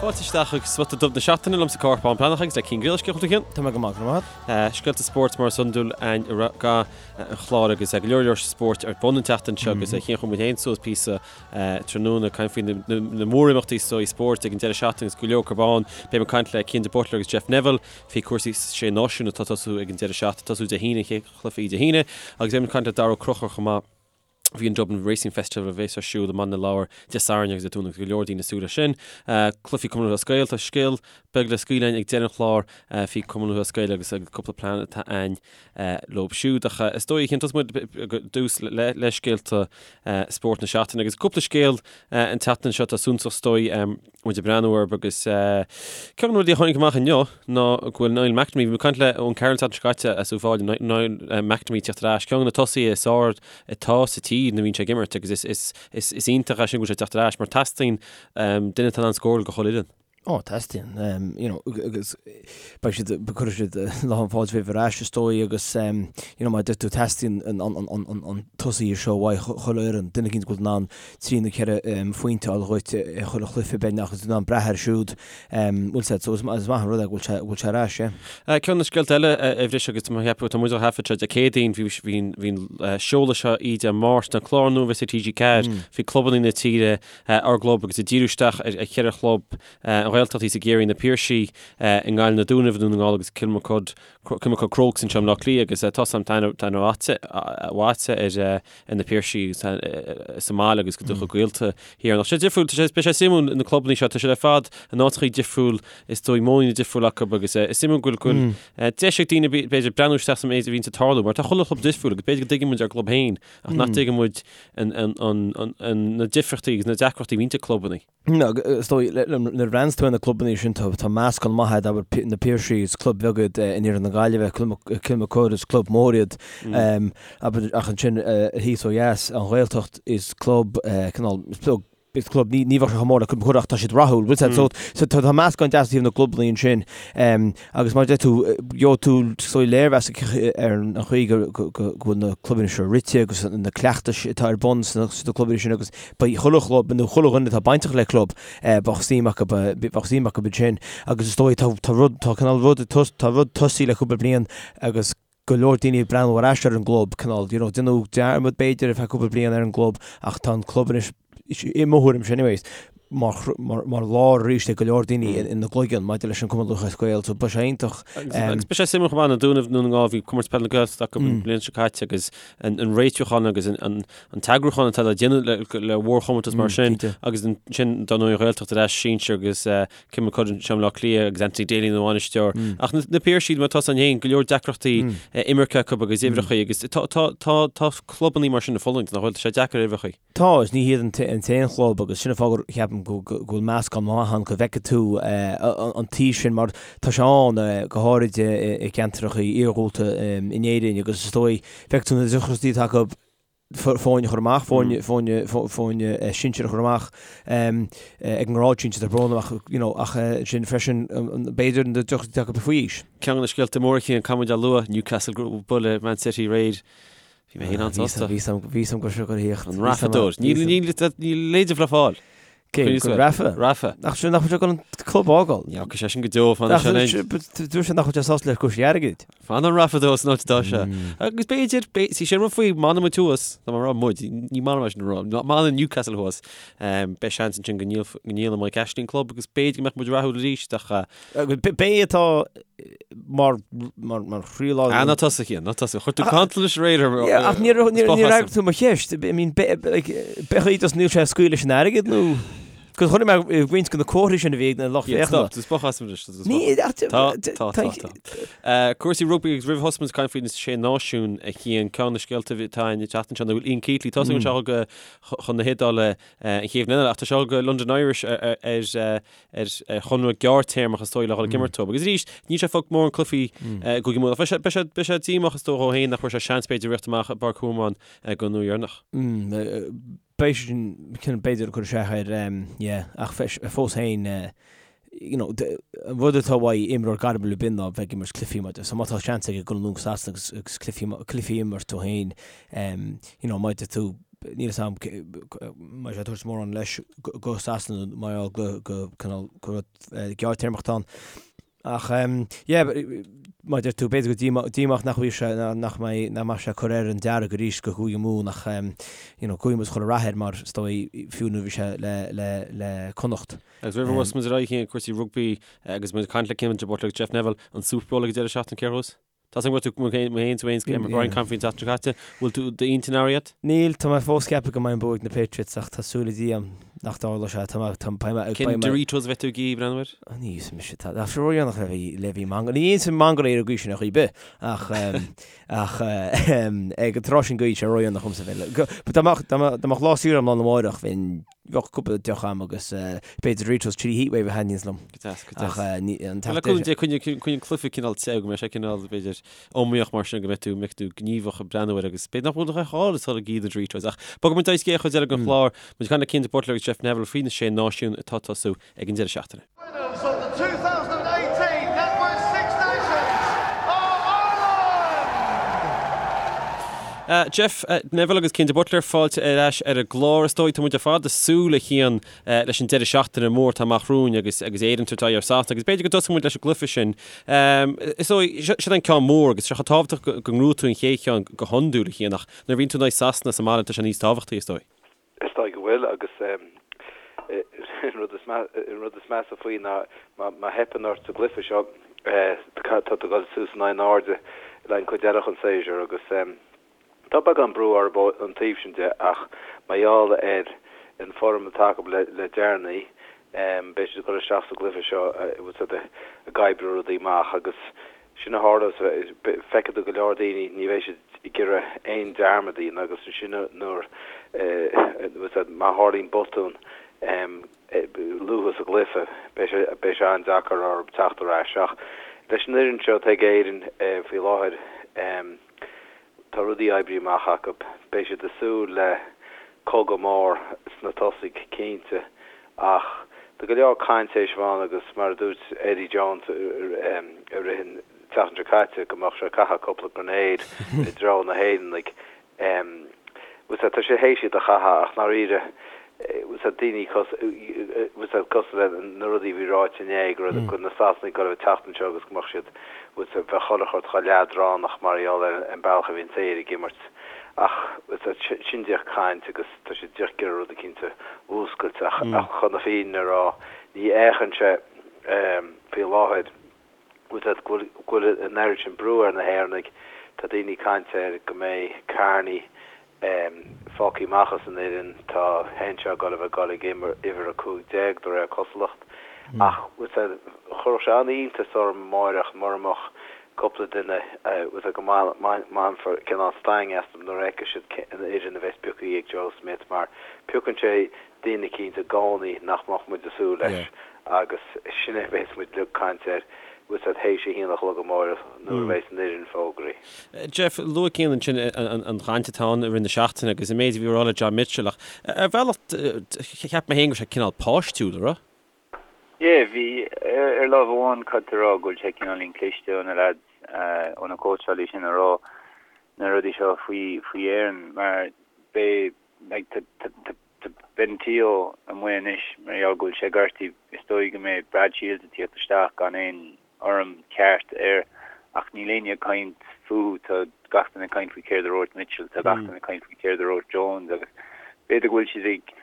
Fáilte isteach chuig Spota Dubh na Seachtaine liomsa Cárthach Bán Breathnach agus le Cian Griallais cén chaoi a bhfuil tú a Chian? Tá mé go maith, go raibh maith agat. Scéalta spóirt mar is iondúil againn i rith an chláir agus go leor leor spóirt ar bun an tseachtain seo agus a Chian chuir muid féin suas píosa tráthnóna ag caint faoi na mórimeachtaí is dóigh spóirt ag an deireadh seachtaine agus go leor acu ann. Beidh muid ag caint le Cian de Buitléar agus Jeff Neville faoi cúrsaí Sé Náisiún atá ag tosú ag an deireadh seachtaine, tosú Dé hAoine, an chéad chluiche Dé hAoine agus beidh muid ag caint le Dara Ó Conchúir chomh maith. Faoi an Dublin Racing Festival a bheas ar siúl i mBaile na Lobhar Dé Sathairn agus Dé Domhnaigh agus go leor daoine ag súil leis sin. Cluichí Cumann Lúthchleas Gael, tá scéal beag le scaoileadh ag deireadh an chláir faoi Cumann Lúthchleas Gael agus cúpla plean atá a'inn leo siúd. Ach is dóigh a Chian tosóidh muid ar dtús le scéalta spóirt na seachtaine agus cúpla scéal an tseachtain seo atá suntasach is dóigh. muid ag breathnú orthu agus ceann de na rudaí a tháinig amach inniu ná go bhfuil Niall McNamee, bhí mé ag caint le Eoin Carroll an tseachtain seo caite as Uíbh Fhailí, Niall McNamee ag teacht ar ais, ceann de na tosaithe is fearr atá sa tír nuair a bhíonn sé ag imirt agus is is iontach é sin go bhfuil sé ag teacht ar ais mar teastaíonn duine atá in ann scóráil do chuile fhoireann. Ó, teastaíonn, you know, agus beidh siad, cuirfidh siad lán fáilte roimhe ar ais is dóigh agus, you know, mar a deir tú, teastaíonn an tosaí seo uaidh chuile fhoireann, duine eicínt go bhfuil in ann 3 nó 4 phointe a fháil dhuit i chuile chluiche beagnach agus in ann brath air siúd. Bhfuil sé, so is maith an rud é go bhfuil sé, bhfuil sé ar ais, yeah. Ceann de na scéalta eile a bhris agus tá mé ag ceapadh, tá muid á thaifead seo Dé Céadaoin, bhí, bhí, bhí an seoladh seo oíche Dé Máirt, an clár nua a bheas ar TG4 faoi clubanna na tíre, ár gclub agus ag díriú isteach ar cheithre chlub, an Ghaeltacht thíos i gCiarraí, na Piarsaigh i nGaillimh, na Dúnaibh i nDún na nGall agus Kilmacud Kilmacud Crokes anseo i mBleá Cliath agus tá a fhios a'm tá aithne mhaith agat ar na Piarsaigh sa mbaile agus go do chuid gaolta thiar. Ach sé difriúil, tá sé, beidh sé suimiúil na clubanna seo, tá siad ar fad in áiteachaí difriúil, is dóigh modhanna difriúil acu agus is suimiúil go bhfuil deis ag daoine b'fhéidir breathnú isteach sa méid a bhíonns ag tarlú mar tá chuile chlub difriúil agus b'fhéidir go dtuigeann muid ár gclub féin ach nach dtuigeann muid na difríochtaí agus na deacrachtaí a bhíonns ag clubanna. Is dóigh, nuair a bhreathnaíonns tú ar na clubanna sin, tá meascán maith a'd, abair, na Piarsaigh, is club bheag iad in iarthar na Gaillimhe, Kilmacud is club mór iad, abair, ach ansin thíos ó dheas, an Ghaeltacht, is club, cineál, is club, is club, ní bheadh sé chomh mór le Kilmacud ach tá siad rathúil, bhfuil a fhios a'd, so tá meascán deas ó thaobh na gclubanna ansin. Agus mar a deir tú, gheobhaidh tú is dóigh léirmheas ar an chaoi go bhfuil na clubanna seo rite agus na cleachtais atá ar bun sna clubanna sin agus beidh chuile chlub nó chuile dhuine atá bainteach le club, bheadh suim acu, bheadh suim acu ansin. Agus is dóigh tá tá rud, tá cineál rud, tá rud tosaithe le cúpla bliain agus go leor daoine ag breathnú ar ais ar an gclub, cineál, you know, déanadh dearmad b'fhéidir ar feadh cúpla bliain ar an gclub ach tá an club anois, i mo thuairimse anyways, mar, mar, mar lár arís ag go leor daoine ina gcloigeann maidir leis an Cumann Lúthchleas Gael, so beidh sé iontach. Agus beidh sé suimiúil chomh maith na Dúnaibh Dún na nGall, bhí Comórtas Peile na Gaeltachta acu an bhliain seo caite agus an réitiúchán agus an t-eagrúchán atá le déanamh le mhórchomórtas mar sin agus ansin dar ndóigh an Ghaeltacht ar ais sinsir agus Kilmacud anseo i mBleá Cliath agus Anthony Daly ina bhainisteoir. Ach na Piarsaigh mar atá ann féin, go leor deacrachtaí imirce acu agus uimhreachaí agus tá clubannaí mar sin ag fulaingt nach bhfuil, tá sé deacair uimhreachaí. Tá, is ní hiad an t-aon chlub agus sin an fáth gur ceapaim go bhfuil meascán maith ann go bhfeicfidh tú an taobh sin mar tá sé ann go háirid i gceantracha iarghúlta in Éirinn agus is dóigh feicfidh tú na deacrachtaí atá acu foirne a chur amach, foirne, foirne, foirne sinsir a chur amach ag an ngrád sinsir, tá brón orm ach, you know, ach sin freisin b'fhéidir na deacrachtaí atá acu faoi aois. Ceann de na scéalta móra Cian, caithfidh muid a lua, Newcastle bualadh Man City aréir. Bhí mé féin an-sásta. Bhí a fhios a'm go raibh sé ag tíocht. An Rafa dóir. Níl leide le fáil. Cé, go Rafa? Rafa. Nach sin nach bhfuil sé ag dul an club a fhágáil? Ní fhágfaidh sé sin go deo, fanfaidh sé linn. Dúirt sé nach bhfuil sé sásta le cúrsaí airgid. Fanann Rafa dó san áit atá sé. Agus b'fhéidir, sí sin rud faoi, má fhanann muid thuas, tá mé ag rá muid, ní maith liom é sin a rá, má fhanann Newcastle thuas, beidh seans ansin go ndíolann Mike Ashley an club agus b'fhéidir go mbeadh muid rathúil arís ach B'é atá mar mar chroílár. Ah, ná tosaigh, Cian, ná tosaigh. Chuir tú cantal leis aréir orm. Yeah, ach níor fhreagair tú mo cheist. I mean, b'é just níl sé ag scaoileadh leis an airgead nó? Cos chonaic mé roinnt de na comharthaí sin a bhí ag na lucht féachana. Stop, just boch as anois. Ní, Tá, tá, tá, tá. Cúrsaí rugbaí agus roimh thosú muid ag caint faoi na Sé Náisiún a Chian, ceann de na scéalta atá an tseachtain seo ná go bhfuil Ian Keatley, tá a fhios againn go bhfuil sé chun na hIodáile an chéad bhliain eile ach tá sé go London Irish ar ar chonradh gearrthéarmach is dóigh le dhul ag imirt dóibh. Agus arís, níl sé ag fáil mórán cluichí i gCúige Mumhan. Ach beidh sé, beidh sé, beidh sé díomách is dóigh dhó féin nach bhfuair sé seans b'fhéidir rith amach i bPáirc Thormóin don uair dheireanach. Beidh sé sin, cineál b'fhéidir ag cur isteach air, yeah, ach fós féin, you know, an rud atá uaidh imreoir gairmiúil ar bith ná bheith ag imirt cluichí mar so má tá seans aige dul anonn go Sasana agus, agus cluichí, cluichí a imirt dó féin, you know, má deir tú. Níl 'fhios a'm an mbeidh sé ag tabhairt mórán leis go Sasana mar gheall go go cineál go rud gearrtéarmach atá ann. Ach yeah, mar a deir tú, b'fhéidir go díomách nach bhfuil sé, nach mbeidh, nach mbeidh sé ag cur air an dearg arís go Cúige Mumhan ach you know, guíonn muid chuile rath air mar is dóigh fiú nuair a bhí sé le, le, le Connacht. Agus roimh a bhosfaidh muid ar aghaidh chuig cúrsaí rugbaí agus muid ag caint le Cian de Buitléar agus Jeff Neville, an Super Bowl ag an deireadh seachtaine, cé thuas? Tá a fhios agam go bhfuil tú, mé féin, tú féin, Brian caint faoin tseachtain seo caite, bhfuil tú d'intinn athraithe agat? Níl, tá mé fós ag ceapadh go mbeidh an bua ag na Patriots ach tá súil ag Dia agam nach dtarlóidh sé. Tá mé, tá, beidh mé, Cén beidh mé. Doritos a bheidh tú ag iarraidh breathnú air? Ní íosfaidh mise, tá, tá sé ródhéanach le bheith, le bheith ag mangáil. Ní íosfaidh mangáil ar an gcaoi sin ar chaoi ar bith ach, ach ag an tráth sin go bhfuil sé ródhéanach dhomsa bheith le, go, dá mbeadh, dá mbeadh, dá mbeadh lá saoire agam lá arna mháireach bheinn, Bheadh cúpla deoch a'm agus b'fhéidir Doritos Chili Heatwave a thaitníonns liom. Go deas, go deas. Ach ní, an Le cúnamh Dé, coinnigh, coinnigh an cluiche cineál te, go mbeidh sé cineál, b'fhéidir, iomaíoch mar sin, go mbeidh tú, mbeidh tú gníomhach ag breathnú air agus b'fhéidir nach bhfuil a dhath ag iarraidh na Doritos. Ach bogfaidh muid ar aghaidh chuig an chuid eile den chlár, muid ag caint le Cian de Buitléar agus Jeff Neville faoi na Sé Náisiún atá ag tosú ag an deireadh seachtaine. Winners of the 2018 NatWest Six Nations are Ireland! Jeff Neville agus Cian de Buitléar, fáilte ar ais ar an gclár. Is dóigh, tá muid ar fad ag súil, a Chian, leis an deireadh seachtaine mór atá amach romhainn agus agus Éire ag tabhairt aghaidh ar Sasana agus b'fhéidir go dtosóidh muid leis an gcluiche sin. Is dóigh, sin an ceann mór agus sé chomh tábhachtach go ngnóthóidh tú an chéad cheann go hiondúil, a Chian, ach nuair a bhíonn tú in aghaidh Sasana sa mbaile tá sé níos tábhachtaí, is dóigh. Is dóigh go bhfuil, agus an rud is measa faoi ná má theipeann ort sa gcluiche seo, tá tú ag dul suas in airde le an cuid eile den séasúr agus tá beagán brú orthu ón taobh sin de ach mar gheall ar an form atá acu le deireanaí, beidh siad ag dul isteach sa gcluiche seo ag oibriú rudaí amach agus Sin a tharla, feicfidh tú go leor daoine, ní bheidh siad ag iarraidh aon dearmad a dhéanamh agus ansin nuair, má tharlaíonn botún luath sa gcluiche, beidh sé, beidh sé an-deacair orthu teacht ar ais. Ach leis an fhoireann seo atá ag Éirinn faoi láthair, Tá rudaí oibrithe amach acu. Beidh siad ag súil le cogadh mór sna tosaigh, cinnte, ach tá go leor caint théis a bheith ann agus mar a dúirt Eddie Jones i rith an tseachtain seo caite go mbeadh sé ag caitheamh cúpla grenade i dtreo na hÉireannaigh. Tá sé théis iad a chaitheamh ach ndáiríre tá daoine cosúil le na rudaí a bhí ráite inné go raibh na Sasanaigh ag dul a bheith ag teacht anseo agus go mbeadh siad bheadh chuile shórt chomh leadránach mar gheall ar an bealach a bhíonn Éire ag imirt. Ach sin díreach caint agus tá siad díreach ag iarraidh rud eicínt a mhúscailt ach chun na fírinne a rá ní fhéachann sé faoi láthair go bhfuil an oiread sin brú ar na hÉireannaigh. Tá daoine ag caint ar go mbeidh Kearney fágtha amach as an fhoireann. Tá Henshaw ag dul a bheith ag dul ag uimhir 15 de réir cosúlacht. Ach chuirfeadh sé an-iontas orm amáireach mura mbeadh cúpla duine go mbainfear cineál stangadh astu nuair a fheicfidh siad an fhoireann a bheas pioctha ag Joe Schmidt mar piocann sé duine eicínt i gcónaí nach mbeadh muid ag súil leis agus sin é a bheas muid uilig ag caint air théis a haon a chlog amáireach nuair a bheas an fhoireann fógraithe. Jeff, luaigh Cian ansin an chaint atá ann i rith na seachtaine agus an méid a bhí á rá le John Mitchell ach ar bhealach cheap mé féin go raibh sé cineál páistiúil, an raibh? Yeah, bhí. Ar lámh amháin caithfidh tú a rá go bhfuil sé cineáilín cliste ó na lads, ó na cóitseálaí sin a rá na rudaí seo faoi faoi Éirinn mar beidh like tá tá tá Tá Ben Te'o amuigh anois mar gheall go bhfuil sé gortaithe. Is dóigh go mbeidh Brad Shields ag tíocht isteach gan aon fhoirm ceart air ach níl éinne ag caint fúthu. Tá gach duine ag caint faoi céard a dúirt Mitchell, tá gach duine ag caint faoi céard a dúirt Jones agus b'fhéidir go bhfuil siad ag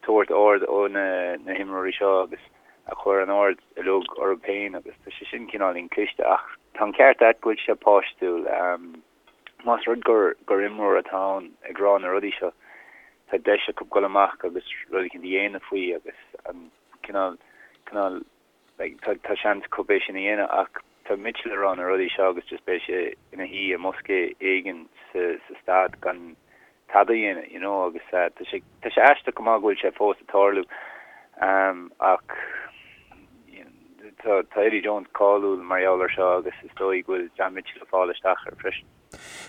tabhairt aird ó na na himreoirí seo agus a chur an aird uilig orthu féin agus tá sé sin cineáilín cliste ach tá an ceart agat go bhfuil sé páistiúil. Más rud gur gur imreoir atá ann ag rá na rudaí seo, tá deis acu dul amach agus rud éicint a dhéanamh faoi agus an cineál, cineál, like, tá, tá seans acu é sin a dhéanamh ach tá Mitchell ag rá na rudaí seo agus just beidh sé ina shuí i mbosca éigin sa, sa staid gan tada a dhéanamh, you know, agus tá sé, tá sé aisteach go maith go bhfuil sé fós ag tarlú ach tá, tá Eddie Jones cáiliúil mar gheall ar seo agus is dóigh go bhfuil John Mitchell ag fáil isteach air freisin.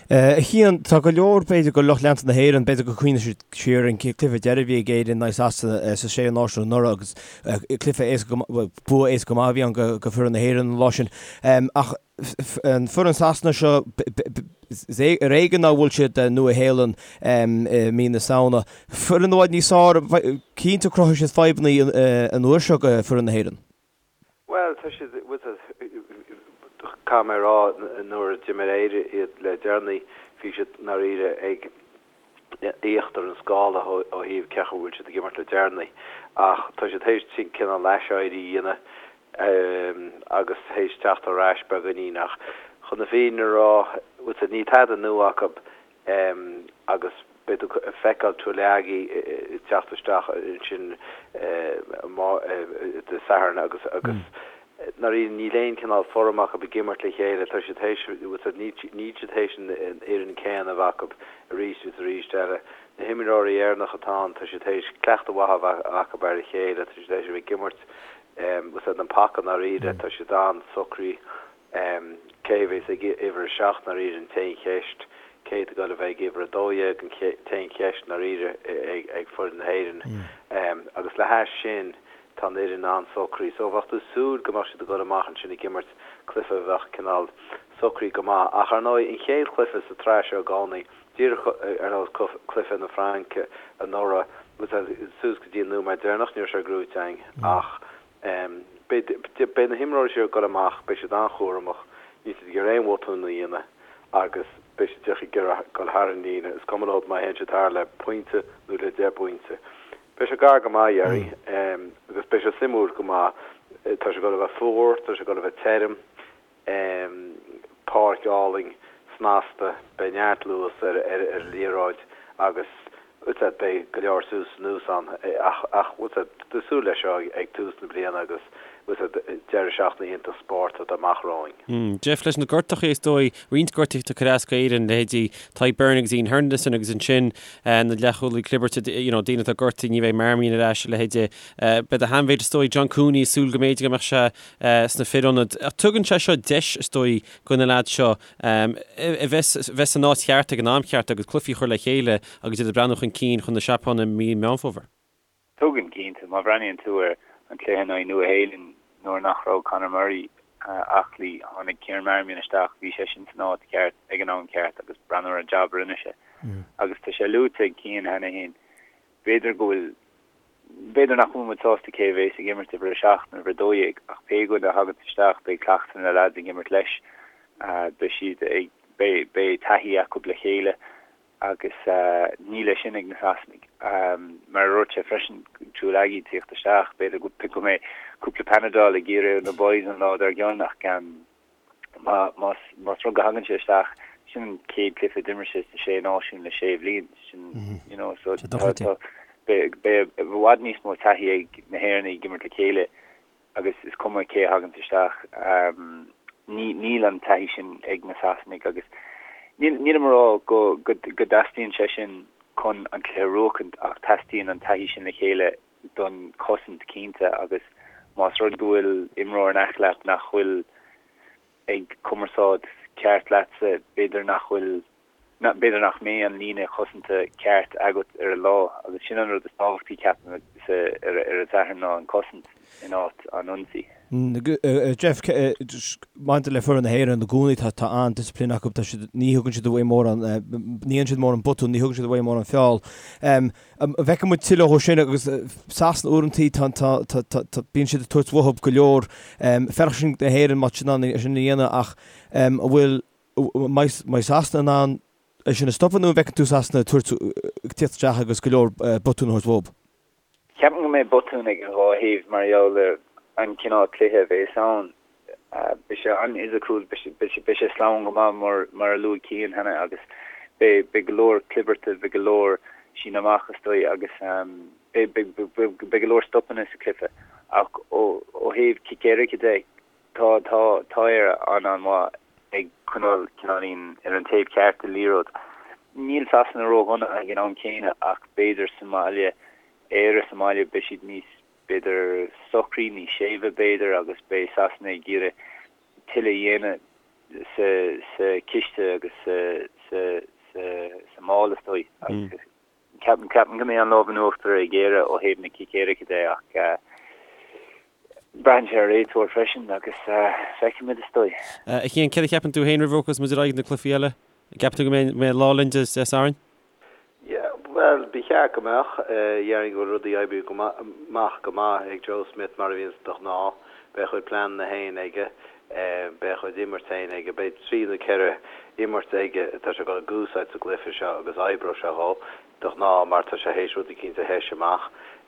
A Chian, tá go leor, b'fhéidir, de lucht leanta na hÉireann, b'fhéidir go cuimhneoidh siad siar ar an cluiche deiridh a bhí ag Éirinn in aghaidh Sasana sa Sé Náisiún anuraidh agus cluiche éasca go maith, bua éasca go maith a bhí ann go foireann na hÉireann an lá sin. Ach an foireann Sasana seo. Is ar éigean nár bhuail siad Nua-Shéalainn i mí na Samhna. Foireann i bhfad níos fearr, cinnte cruthóidh siad fadhbanna an uair seo do foireann na hÉireann. Bhuel, tá siad, caithfidh mé a rá, nuair a d'imir Éire iad le deireanaí, bhí siad ndáiríre ag íochtar an scála ó thaobh cén chaoi a bhfuil siad ag imirt le deireanaí. Ach tá siad théis cineál aiséirí a dhéanamh agus théis teacht ar ais beagáinín. Ach chun na fírinne a rá, níl tada nua acu agus beidh tú ag feiceáil Tuilagi ag teacht isteach ansin Dé Sathairn agus agus ndáiríre níl aon cineál form acu ag imirt le chéile, tá siad théis, níl siad théis an fhoireann céanna a bheith acu arís agus arís eile. Na himreoirí Éireannacha atá ann, tá siad théis cleachtadh mhaith a bheith acu ar a chéile, tá siad théis a bheith ag imirt an paca ndáiríre, tá siad an-socraithe. Cé a bheas ag uimhir a 7 ndáiríre an t-aon cheist. Cé atá ag dul a bheith ag uimhir a 12 an t-aon cheist ndáiríre ag foireann na hÉireann. Agus le hais sin tá an fhoireann an-socraithe. So bheadh tú ag súil go mbeadh siad ag dul amach ansin ag imirt cluiche a bheadh cineál socraithe go maith. Ach ar ndóigh an chéad chluiche sa tsraith seo i gcónaí, díreach ar nós cluiche na Fraince anuraidh, suas go dtí an nóiméad deireanach ní raibh sé gnóite againn ach Beidh na himreoirí seo ag dul amach, beidh siad an-chúramach, níl siad ag iarraidh aon bhotún a dhéanamh agus beidh siad díreach ag iarraidh dul thar an líne, is cuma leo má théann siad thar le pointe nó le deich bpointe. Beidh sé gar go maith, a Gherry, agus beidh sé suimiúil go maith. Tá sé ag dul a bheith fuar, tá sé ag dul a bheith tirim. Páirc álainn, snasta, beidh neart luas ar an liathróid agus beidh go leor suas is anuas ann ach ach tá súil leis seo ag tús na bliana agus deireadh seachtaine iontach spóirt atá amach romhainn. Jeff, leis na gortachaí is dóigh, roinnt gortaithe ag cur as d'Éirinn, leithéidí Tadhg Beirne agus Iain Henderson agus ansin na leathchúlaí clibirte, you know, daoine atá gortaithe, ní bheidh Marmion ar ais, a leithéide. Beidh a sheanmhéid is dóigh John Cooney ag súil go mb'fhéidir go mbeadh sé sna fir ionaid. Ach tugann sé seo deis, is dóigh, do na leaids seo a bheith bheith san áit cheart ag an am cheart agus cluichí a chur le chéile agus iad ag breathnú chun cinn chun na Seapáine i mí Meán Fómhair. Tugann, cinnte. Má bhreathnaíonn tú ar an cluiche in aghaidh Nua-Shéalainn nuair nach raibh Conor Murray aclaí, tháinig Kieran Marmion isteach, bhí seisean san áit cheart ag an am ceart agus breathnú ar an jab a rinne sé. Agus tá sé luaite ag Cian cheana féin, b'fhéidir go bhfuil B'fhéidir nach bhfuil muid sásta cé a bhéas ag imirt uimhir 7 nó uimhir 12 ach pé dhuine a thaganns isteach beidh cleachtadh na leaids ag imirt leis. Beidh siad ag, beidh, beidh taithí acu le chéile agus níl é sin ag na Sasanaigh. Mar a dúirt sé freisin, Tuilagi ag tíocht isteach, b'fhéidir go, go mbeidh cúpla Panadol ag iarraidh ar na boys an lá dár gcionn ach Más rud go thagann sé isteach, sin an chéad cluiche a d'imir sé sna Sé Náisiún le sé bhliain. Sin, you know, so tá, tá, beidh i bhfad níos mó taithí ag na hÉireannaigh ag imirt le chéile agus is cuma cé a thaganns isteach, ní, níl an taithí sin ag na Sasanaigh agus níl, nílim a rá go, go, go dteastaíonn sé sin chun an cluiche a bhuachaint ach teastaíonn an taithí sin le chéile don chosaint cinnte agus más rud go bhfuil imreoir in aice leat nach bhfuil ag cumarsáid ceart leatsa, b'fhéidir nach bhfuil, b'fhéidir nach mbeidh an líne chosanta ceart agat ar an lá agus sin an rud is tábhachtaí ceapaim ar an Satharn ná an cosaint in áit an ionsaí. Jeff, maidir le foireann na hÉireann i gcónaí tá tá an-discipline acu, tá siad, ní thugann siad uaidh mórán, ní dhéanann siad mórán botún, ní thugann siad uaidh mórán feall. An bhfeicfidh muid tuilleadh dhó sin agus Sasana uaireantaí tá tá tá tá tá bíonn siad ag tabhairt uathu go leor. Fearacht sin na hÉireann má tá siad in ann é sin a dhéanamh ach an bhfuil an mbeidh Sasana in ann é sin a stopadh nó an bhfeiceann tú Sasana ag tabhairt ag tíocht isteach agus go leor botún a thabhairt uathu? Ceapaim go mbeidh botúin ag an dhá thaobh mar gheall ar an chineál cluiche a bheas ann. Beidh sé an-fhisiciúil, beidh sé sleamhain go maith mar a luaigh Cian cheana agus beidh go leor clibirte, beidh go leor síneadh amach is dóigh agus beidh go leor stopanna sa chluiche. Ach ó thaobh cic éirice de, tá tá Éire an-an-mhaith ag coinneáil cineáilín ar an taobh ceart den liathróid. Níl Sasana ródhona ag an am céanna ach b'fhéidir sa mbaile, Éire sa mbaile, beidh siad níos, b'fhéidir, socraí, níos séimhe b'fhéidir agus beidh Sasana ag iarraidh tuilleadh a dhéanamh sa sa chiste agus sa sa sa sa mála is dóigh agus Ceapaim go mbeidh an lámh in uachtar ag Éire ó thaobh na cic éirice de ach braitheann sé ar réiteoir freisin agus feicfimid is dóigh. A Chian, céard a cheapann tú féin roimh a bhogfas muid ar aghaidh na cluichí eile? Ceapann tú go mbeidh lá linn Dé Sathairn? Yeah, bhuel, ba cheart go mbeadh. Déarfainn go bhfuil rudaí oibrithe amach go maith ag Joe Schmidt mar a bhíonns de ghnáth. Beidh a chuid pleananna féin aige. Beidh a chuid imirt féin aige. Beidh trí nó ceithre imirt aige atá sé ag dul a úsáid sa gcluiche seo agus oibreoidh sé dhó de ghnáth mar tá sé théis rud eicínt a thoiseacht amach.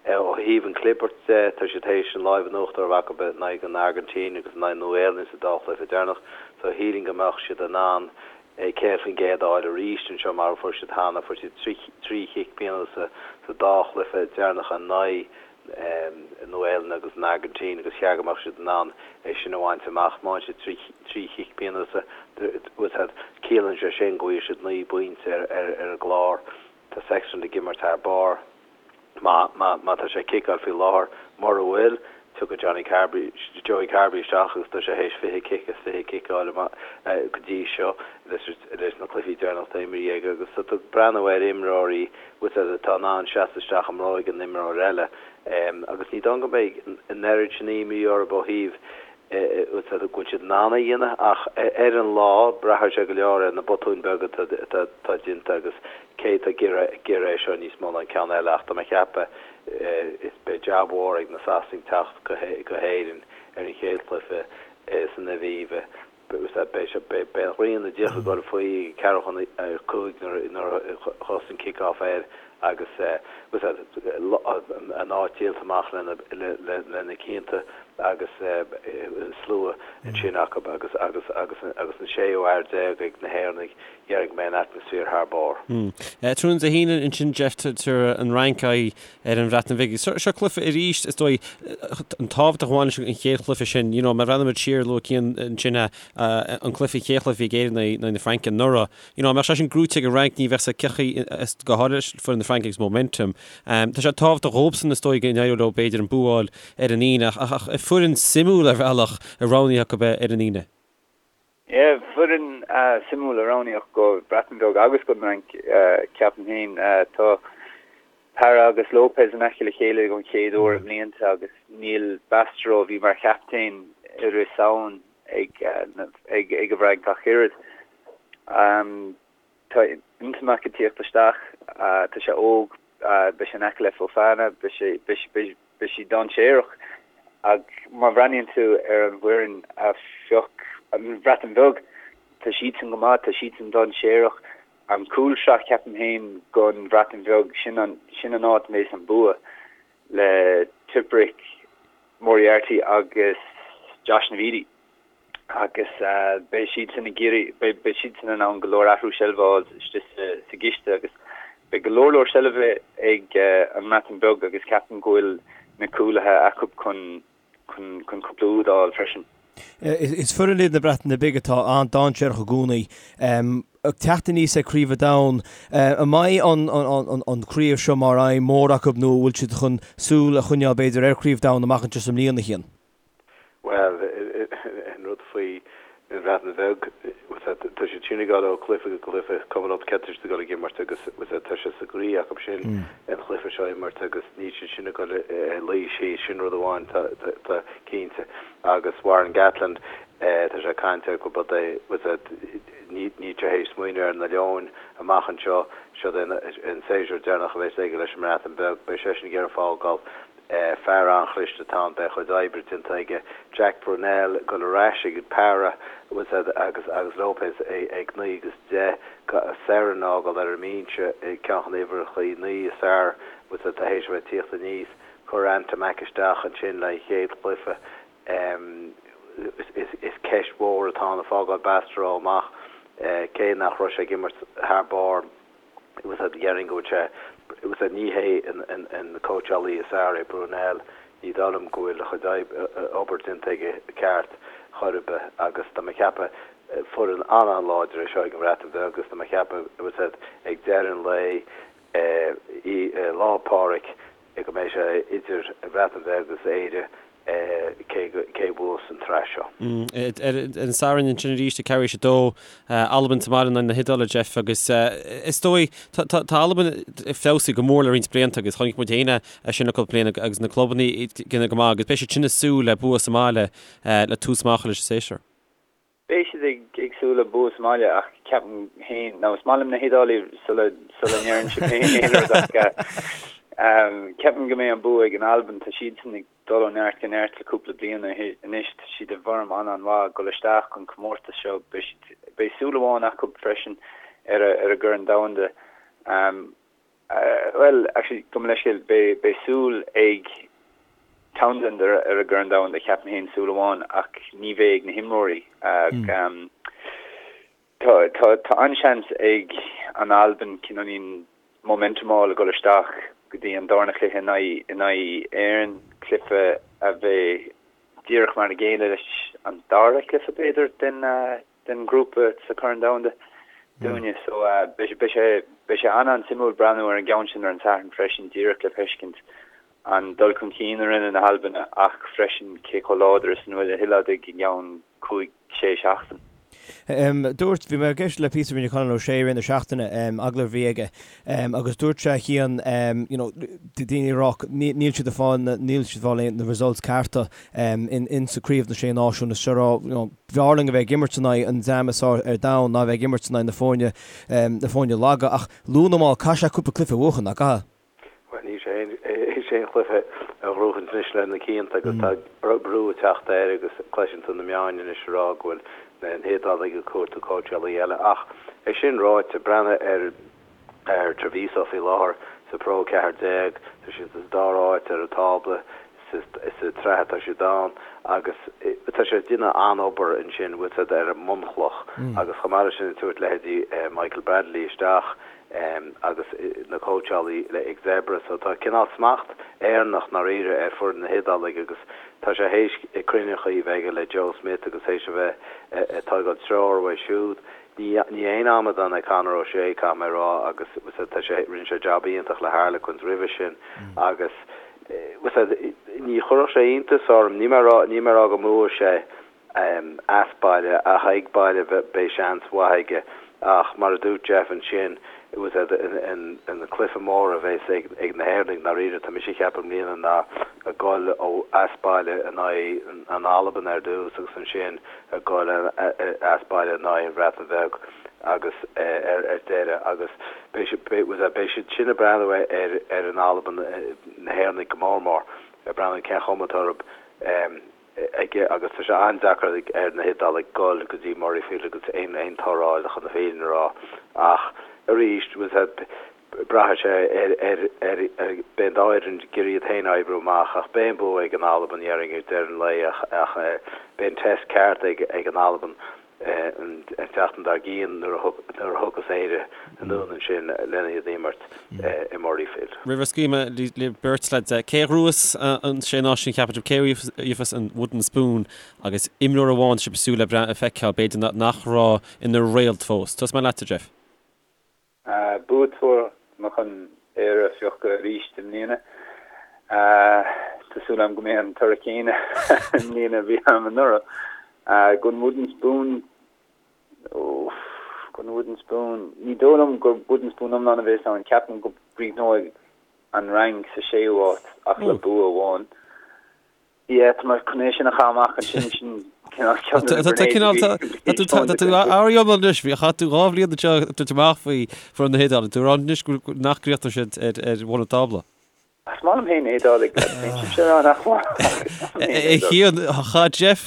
Ó thaobh an chlibirt de, tá siad théis an láimh in uachtar a bheith acu in aghaidh an Airgintín agus in aghaidh Nua-Shéalainn sa dá chluiche deireanach so shílfinn go mbeadh siad in ann 100% a fháil arís anseo mar a fuair siad cheana. Fuair siad trí chic pionóis sa dá chluiche deireanacha in aghaidh Nua-Shéalainn agus an Airgintín agus cheart go mbeadh siad in ann é sin a bhaint amach. Má fhaigheann siad trí chic pionóis, ciallaíonn sé sin go bhfaighidh siad 9 bpointe ar an gclár. Tá Sexton ag imirt thar barr. Má tá sé ag ciceáil faoi láthair, mura bhfuil, tiocfaidh Johnny Carberry, Joey Carbery isteach agus tá sé théis 20 cic as 20 cic a fháil amach go dtí seo leis na cluichí deireanacha atá imrithe aige agus tá tú ag breathnú ar imreoirí atá in ann seasamh isteach i mbróig an imreoir eile agus ní dóigh go mbeidh an oiread sin imní orthu ó thaobh go bhfuil siad in ann é a dhéanamh ach ar an lá, braithfidh sé go leor ar na botúin beaga atá déanta agus cé atá ag iarraidh é seo níos mó ná an ceann eile ach tá mé ag ceapadh is beidh jab mhór ag na Sasanaigh teacht go hÉirinn ar an chéad chluiche san Aviva. Beidh an ghrian ag dul faoi ag ceathrú chun a 5 nuair a thosaíonn kick-off air agus an áit díolta amach le na cianta agus slua ansin acu agus an séú fhear déag ag na hÉireannaigh, déarfainn go mbeidh an atmaisféar thar barr. Tráthnóna Dé hAoine ansin, Jeff, tabharfaidh an Fhrainc aghaidh ar an Bhreatain Bhig. Seo cluiche arís, is dóigh, an tábhacht a bhain leis an chéad chluiche sin. You know, má bhreathnaímid siar, luaigh Cian ansin an cluiche, an chéad chluiche a bhí ag Éirinn in aghaidh na Fraince anuraidh. You know, dá mbeadh sé sin gnóite ag an Fhrainc, ní bheadh sé cén chaoi, go háirithe leis foireann na Fraince agus momentum. Tá sé tábhachtach dhóibhsan, is dóigh, go n-éireodh leo b'fhéidir an bua a fháil ar an Aoine, ach foireann suimiúil ar bhealach a roghnaíodh acu ar an Aoine. Yeah, foireann suimiúil a roghnaíodh go Breatain Bheag agus don Fhrainc, ceapaim féin. Tá Parra agus Lopez in aice le chéile don chéad uair i mblianta agus níl Bastareaud, a bhí mar chaptaen i rith Samhain, ag an bhFrainc ach oiread. Tá Ntamack ag tíocht isteach, tá sé óg, beidh sé in aice le Fofana, beidh sé, beidh sé dainséarach. Ach má bhreathnaíonn tú ar an bhfoireann a phioc an Bhreatain Bheag, tá siadsan go maith, tá siadsan dainséarach. An cúlsraith, ceapaim féin, don Bhreatain Bheag, sin an, sin an áit a mbeidh an bua le Tipuric, Moriarty agus Josh Navidi agus beidh siadsan ag iarraidh, beidh siadsan in ann go leor athrú seilbhe a fháil istigh sa gciste agus beidh go leor leor seilbhe ag an mBreatain Bheag agus ceapaim go bhfuil na cúlaithe acu chun chun cúpla úd a fháil freisin. Is foireann iad na Breataine Bige atá an-dainséarach i gcónaí. Ag teacht aníos ag Craobh an Domhain, an mbeidh an chraobh seo mar aidhm mhór acu nó an bhfuil siad chun súil a choinneáil b'fhéidir ar Chraobh Domhain amach anseo sa mbliain, a Chian? Bhuel, an rud faoi an Bhreatain Bheag, tá siad sin ag dul ó chluiche go cluiche, cuma leo cé atá siad ag dul ag imirt agus tá sé sa gcroí acu sin an chluiche seo a imirt agus níl siad sin ag dul a luí síos, sin rud amháin tá cinnte. Agus Warren Gatland, tá sé ag caint air gurb é, níl sé théis smaoineamh ar na Leoin amach anseo, seo é an séasúr deireanach a bheas aige leis an mBreatain Bheag, beidh seisean ag iarraidh fágáil Fear an-chliste atá ann, beidh a chuid oibre déanta aige. Jack Brunell ag dul ar ais ag Parra agus agus Lopez ag 9 agus 10. Serryn a fhágáil ar an mbinse, ceann de na huimhreacha 9 is fearr atá théis a bheith ag tíocht aníos. Cuir Ntamack isteach ansin le an chéad chluiche. Is ceist mhór atá ann ag fágáil Bastareaud amach, cé nach raibh sé ag imirt thar barr. Déarfainn go bhfuil sé, bhuel, ní hé an cóitseálaí is fearr é Brunell, ní dóigh liom go bhfuil a chuid obair déanta aige ceart chor ar bith agus tá mé ag ceapadh foireann an-an-láidir é seo ag an Bhreatain Bheag agus tá mé ag ceapadh ag deireadh an lae Lá Pádraig go mbeidh sé idir an Bhreatain Bheag agus Éire cé cé bhuas an tsraith seo. Ar an Satharn ansin arís ag ceathrú théis a dó, Albain sa mbaile in aghaidh na hIodáile, Jeff, agus is dóigh tá Albain ag feabhsú go mór le roinnt blianta agus chonaic muid féin é sin le cúpla bliain agus na clubanna ag déanamh go maith agus beidh siad sin ag súil le bua sa mbaile le tús maith a chur leis an séasúr. Beidh siad ag súil le bua sa mbaile ach ceapaim féin, nó is maith liom na hIodálaigh sula sula ndeireann sibh féin aon rud ach ceapaim go mbeidh an bua ag an Albain. Tá siadsan ag dul ó neart go neart le cúpla bliain anois. Tá siad i bhfoirm an-an-mhaith ag dul isteach an comórtas seo. Beidh siad, beidh súil amháin acu freisin ar a ar an gCorn Domhanda. Bhuel, actually, gabh mo leithscéal, beidh beidh súil ag Townsend ar ar an gCorn Domhanda, ceapaim féin, súil amháin, ach ní bheidh ag na himreoirí. Tá tá tá an-seans ag an Albain cineáilín momentum a fháil ag dul isteach go dtí an darna cluiche in aghaidh in aghaidh Éireann, cluiche a bheidh díreach mar a chéile leis an dara cluiche, b'fhéidir, den den ghrúpa sa Chorn Domhanda dúinne. So beidh sé beidh sé an-an-suimiúil breathnú ar an gceann sin ar an Satharn freisin díreach le feiscint an dul chun cinn a rinne na hAlbanaigh ach freisin cé chomh láidir is a bhfuil na hIodálaigh i gceann 5, 6 seachtain. Dúirt, bhí mé ag éisteacht le píosa a rinne Conor O'Shea i rith na seachtaine, agallamh a bhí aige, agus dúirt sé a Chian, you know, daoine ag rá níl siad ag fáil na, níl siad ag fáil na results cearta in, in sa Craobh na Sé Náisiún, is seo rá, you know, b'fhearr linn a bheith ag imirt in aghaidh an dream is fearr ar domhan ná a bheith ag imirt in aghaidh na foirne, na foirne laga, ach luath nó mall caithfidh sé cúpla cluiche a bhuachan, nach gcaithfidh? Bhuel, níl sé théis aon chluiche a ghnóthachaint anois le na cianta agus tá brú ag teacht air agus cloiseann tú na meáin anois ag rá go bhfuil na hIodálaigh ag cuartú cóitseálaí eile. Ach é sin ráite, breathnaigh ar ar Treviso faoi láthair sa Pro 14, tá siad sa dara háit ar an tábla sa tsraith atá siad ann agus tá sé ag déanamh an-obair ansin, bhfuil 's a'd, ar an mbunchloch agus chomh maith leis sin ag tabhairt leithéidí Michael Bradley isteach agus na cóitseálaí ag Zebre so tá cineál smacht Éireannach ndáiríre ar foireann na hIodálaigh agus tá sé théis cruinneachaí a bheith aige le Joe Smith agus théis a bheith ag tógáil treoir uaidh siúd. Ní ní aon amadán é Conor O'Shea caithfidh mé a rá agus tá sé rinne sé jab iontach le Harlequins roimhe sin agus ní chuirfeadh sé iontas orm, níl mé a rá, níl mé a rá go mbuafaidh sé as baile ach ag baile beidh seans mhaith aige ach mar a dúirt Jeff ansin, an cluiche mór a bheas ag na hÉireannaigh ndáiríre, tá mise ag ceapadh i mbliana ná ag goil ó as baile in aghaidh an Albain ar dtús agus ansin ag goil as baile in aghaidh an Bhreatain Bheag agus ar deireadh agus beidh beidh siad sin ag breathnú ar ar an Albain, na hÉireannaigh go mór mór, ag breathnú cén chuma atá orthu aige agus tá sé an-deacair ar na hIodálaigh goil go dtí Murrayfield agus aon aon toradh a fháil chun na fírinne a rá ach arís braithfidh sé ar ar ar beidh an dá fhoireann ag iarraidh iad féin a oibriú amach ach beidh an bua ag an Albain dhéarfainn ag deireadh an lae ach ach beidh an test ceart ag ag an Albain an tseachtain dár gcionn nuair a thiocfas Éire anonn ansin lena iad a imirt i Murrayfield. Roimh a scaoilfidh mé libh beirt lads, cé a ghnóthós an Sé Náisiún cheapann sibh? Cé a gheobhas an Wooden Spoon agus imreoir amháin sibh ag súil le feiceáil, b'fhéidir nach raibh ina réalt fós? Tosóidh mé leatsa, Jeff. Buaiteoir, tá mé chun Éire a phiocadh arís i mbliana. Tá súil agam go mbeidh an toradh céanna i mbliana a bhí agam anuraidh. Don Wooden Spoon, oof, don Wooden Spoon, ní dóigh liom gur Wooden Spoon iomlán a bheas ann. Ceapaim go gcríochnóidh an Fhrainc sa séú háit ach le bua amháin. Yeah, tá mé chun é sin a chaitheamh amach ansin, sin cineál ceann de na Tá cineál, tá tú, tá tú ar iomlán anois, bhí, chaith tú 2 bhliain anseo ag tabhairt amach faoi foireann na hIodáile, tú ag rá anois go, nach gcríochnóidh siad ar, ar bhun an tábla. Is maith liom féin na hIodálaigh, bíonn sibhse ag rá nach maith, ach is maith liom féin na A hIodálaigh. Chian, chaith Jeff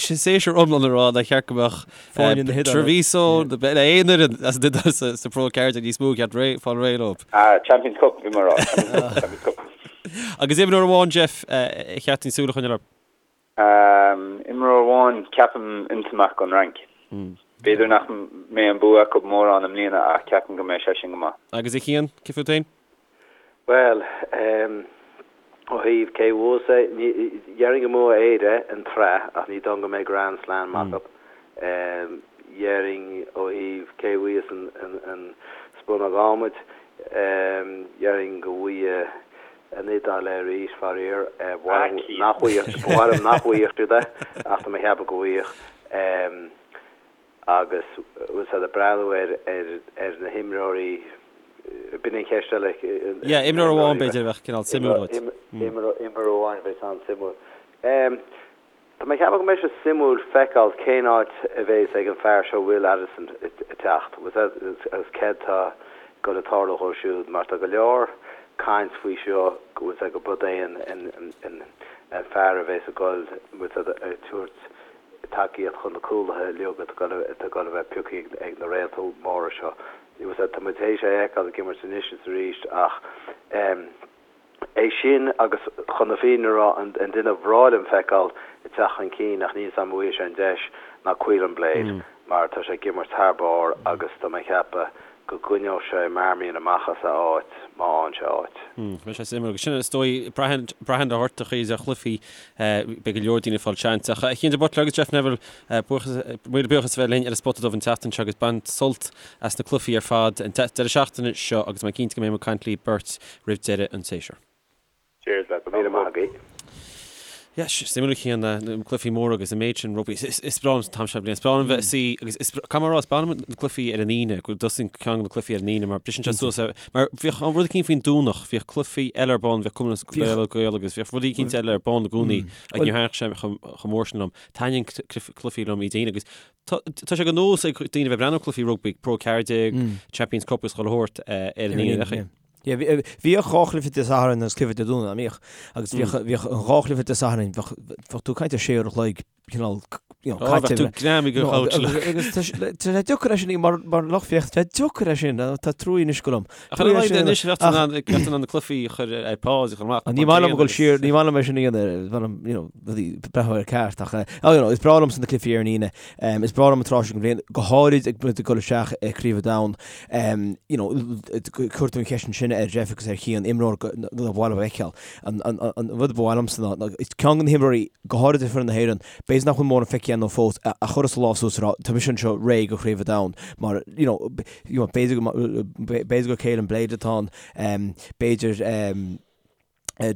séasúr iomlán ag rá nár cheart go mbeadh Foirne na hIodáile. Treviso, le aon fhoireann as an Iodáil sa, sa Pro 14 níos mó ceart ré, fáil réidh leo. Ah, Champions Cup, bhí mé ag rá, Champions Cup, Champions Cup. Agus imreoir amháin, Jeff, ar cheart dúinn súil a choinneáil air? Imreoir amháin, ceapaim Ntamack ón Fhrainc. B'fhéidir nach mbeidh an bua acu mórán i mbliana ach ceapaim go mbeidh seisean go maith. Agus a Chian, cé fút féin? Bhuel, ó thaobh cé a bhuafas é, déarfainn go mbuafaidh Éire an tsraith ach ní dóigh go mbeidh Grand Slam acu. Déarfainn ó thaobh cé a bhuafas an spúnóg adhmaid, Déarfainn go bhfaighidh an Iodáil é arís, faraor. Ba mhaith liom nach bhfaigheadh, ba mhaith liom nach bhfaigheadh siad é, ach tá mé ag ceapadh go bhfaighidh. Agus bhfuil siad ag breathnú ar, ar, ar na himreoirí, b'in an cheist eile. Yeah, imreoir amháin b'fhéidir a bheadh cineál suimiúil duit. Imreoir amháin a bheadh an-suimiúil. Tá mé ag ceapadh go mbeidh sé suimiúil feiceáil cén áit a bheas ag an fear seo Will Addison ag teacht agus céard tá ag dul a tarlú dhó siúd mar tá go leor caint faoi seo go bhfuil sé go brod é an fear a bheas ag dul bhfuil sé ag tabhairt tacaíocht chun na cúlaithe uilig atá ag dul a bheith pioctha ag na réalta móra seo. Tá muid théis é a fheiceáil ag imirt anois is arís ach. É sin agus, chun na fírinne a rá, an duine a bhreá liom feiceáil ag teacht chun cinn, ach níl 'fhios a'm an bhfaighidh sé an deis, ná Caolán Blade, mar tá sé ag imirt thar barr agus tá mé ag ceapadh go gcoinneoidh sé Marmion amach as a áit má fhaigheann sé áit. Beidh sé suimiúil. Agus sin, is dóigh, braitheann ar ghortachaí is ar chluichí, beidh go leor daoine ag fáil seans. Ach a Chian de Buitléar agus Jeff Neville, buíochas, míle buíochas a bheith linn ar an Spota Dubh an tseachtain seo agus bain sult as na cluichí ar fad an deireadh seachtaine seo agus tá mé cinnte go mbeidh muid ag caint libh beirt roimh deireadh an tséasúir. Cheers lads, go raibh míle maith agaibh. Yes, suimiúil a Chian, na cluichí móra agus an méid sin rugbaí. Is breá liom an t-am seo bliana. Is breá liom bheith ag suí agus is caithfidh mé a rá, is breá liom na cluichí ar an Aoine, go dtosaíonn ceann de na cluichí ar an Aoine mar briseann sé suas ar, mar bhíodh an rud eicínt faoin Domhnach, bhíodh cluichí eile ar bun, bhíodh Cumann Gael Gael agus bhíodh rudaí eicínt eile ar bun i gcónaí agus níor thaitnigh sé chomh mór sin liom. Taitníonn cluichí liom Dé hAoine agus Tá sé de nós ag daoine a bheith ag breathnú ar cluichí rugbaí, Pro 14, Champions Cup agus chuile shórt ar an Aoine. Bhíodh dhá chluiche Dé Sathairn agus cluiche Dé Domhnaigh, an mbíodh? Agus bhíodh an dhá chluiche Dé Sathairn, bheadh tú ag caint ar sé uair a chloig cineál caite. Bheadh tú greamaithe den chouch. Agus tá sé deacair é sin mar lucht féachana, tá sé deacair é sin, tá trua anois go liom. Ach ar a laghad anois bheadh tú in ann na cluichí a chur ar pause a chur amach. Ní maith liom a dhul siar, ní maith liom é sin a dhéanamh, you know, rudaí breathnú ar ceart ach oh, you know, is breá liomsa na cluichí ar an Aoine. Um, is breá liom an tráth seo den bhliain, go háirid ag muid ag dul isteach i Craobh an Domhain. Um, you know, chuir tú an cheist ansin ar Jeff agus ar Chian imreoir ba mhaith leo a fheiceáil. An, an, an, an rud ba mhaith liomsa ná, ná is ceann de na himreoirí, go háirid ar foireann na hÉireann, b'fhéidir nach bhfuil mórán feicthe againn fós, a, a chuirfeas a lámh suas a rá, tá mise anseo réidh do Chraobh an Domhain. Mar, you know, you know, b'fhéidir go, b'fhéidir gur Caolán Blade atá ann, um, b'fhéidir, um,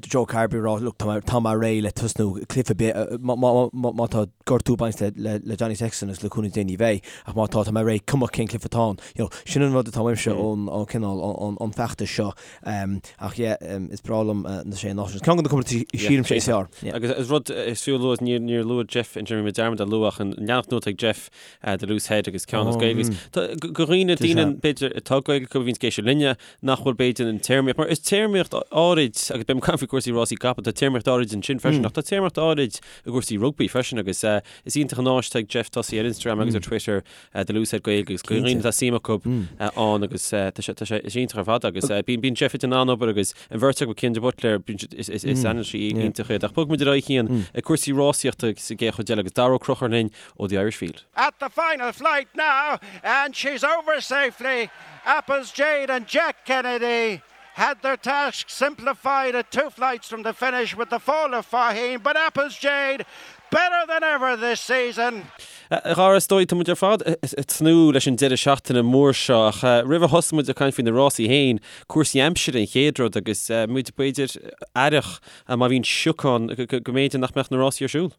Joe Carbery ag rá, look, tá mé, tá mé réidh le tosnú cluiche ar bith, má, má, má, má tá gortú ag baint le, le, le Johnny Sexton agus le cúnamh Dé ní bheidh, ach má tá, tá mé réidh, cuma cén cluiche atá ann. You know, sin an rud atá uaimse ón, ón cineál, ón, ón feachtas seo. Um, ach yeah, um, is breá liom uh, na sé náisiún. Ceann de na comórtais sílimse is fearr. Yeah. Agus is rud is fiú a lua, níor, níor luaigh Jeff an Jimmy dearmad a lua ach an leathanach nua atá ag Jeff uh, The Loose Head agus ceann as Gaeilge. Mm. Tá, go, go dhaoine, daoine, b'fhéidir, atá Gaeilge acu a bhíonns ag éisteacht linne, nach bhfuil b'fhéidir an téarmaíocht, mar is téarmaíocht áirid, agus beidh mé ag caint faoi cúrsaí rásaí capall, tá téarmaíocht áirid ansin freisin, ach tá téarmaíocht áirid i gcúrsaí rugbaí freisin agus is iontach an áis atá ag Jeff tosaí ar Instagram agus ar Twitter, The Loose Head Gaeilge agus go dhaoine atá suim acu ann agus tá sé, tá sé, is iontach ar fad agus bíonn, bíonn Jeff ag déanamh an-obair agus an bheirt acu, Cian de Buitléar, bíonn siad, is, is, is anailísí iontach iad. Ach bogfaidh muid ar aghaidh Cian ag cúrsaí rásaíochta sa gcéad chuid eile agus Dara Ó Conchúir linn ó The Irish Field. At the final flight now and she's over safely Apple's Jade and Jack Kennedy had their task simplified at two flights from the finish with the fall of Faugheen, but Apple's Jade better than ever this season. A Dhara, is dóigh, tá muid ar fad ag tnúth leis an deireadh seachtaine mór seo ach roimh a thosóidh muid ag caint faoi na rásaí féin, cúrsaí aimsire an chéad rud agus muid b'fhéidir aireach má bhíonn sioc ann go mb'fhéidir nach mbeadh na rásaí ar siúl.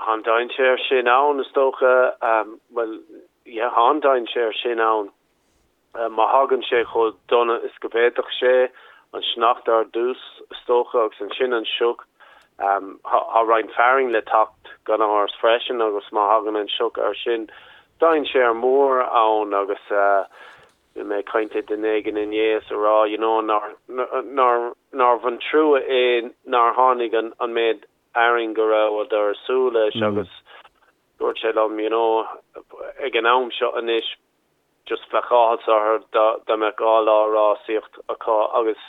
Tá an dainséar sin ann, is dócha. Bhuel, yeah, tá an dainséar sin ann. Má thagann sé chomh dona is go bhféadfadh sé, an sneachta ar dtús, is dócha, agus ansin an sioc. Tá roinnt fearainn le teacht gan amhras freisin agus má thagann an sioc air sin, dainséar mór ann agus bhí mé ag caint le duine éigin inné is a rá, you know, nár, nár, nárbh an trua é nár tháinig an, an méid fhearainn go rabhadar ag súil leis agus dúirt sé liom, you know, ag an am seo anois just bheadh áthas orthu dá dá mbeadh 2 lá rásaíocht acu agus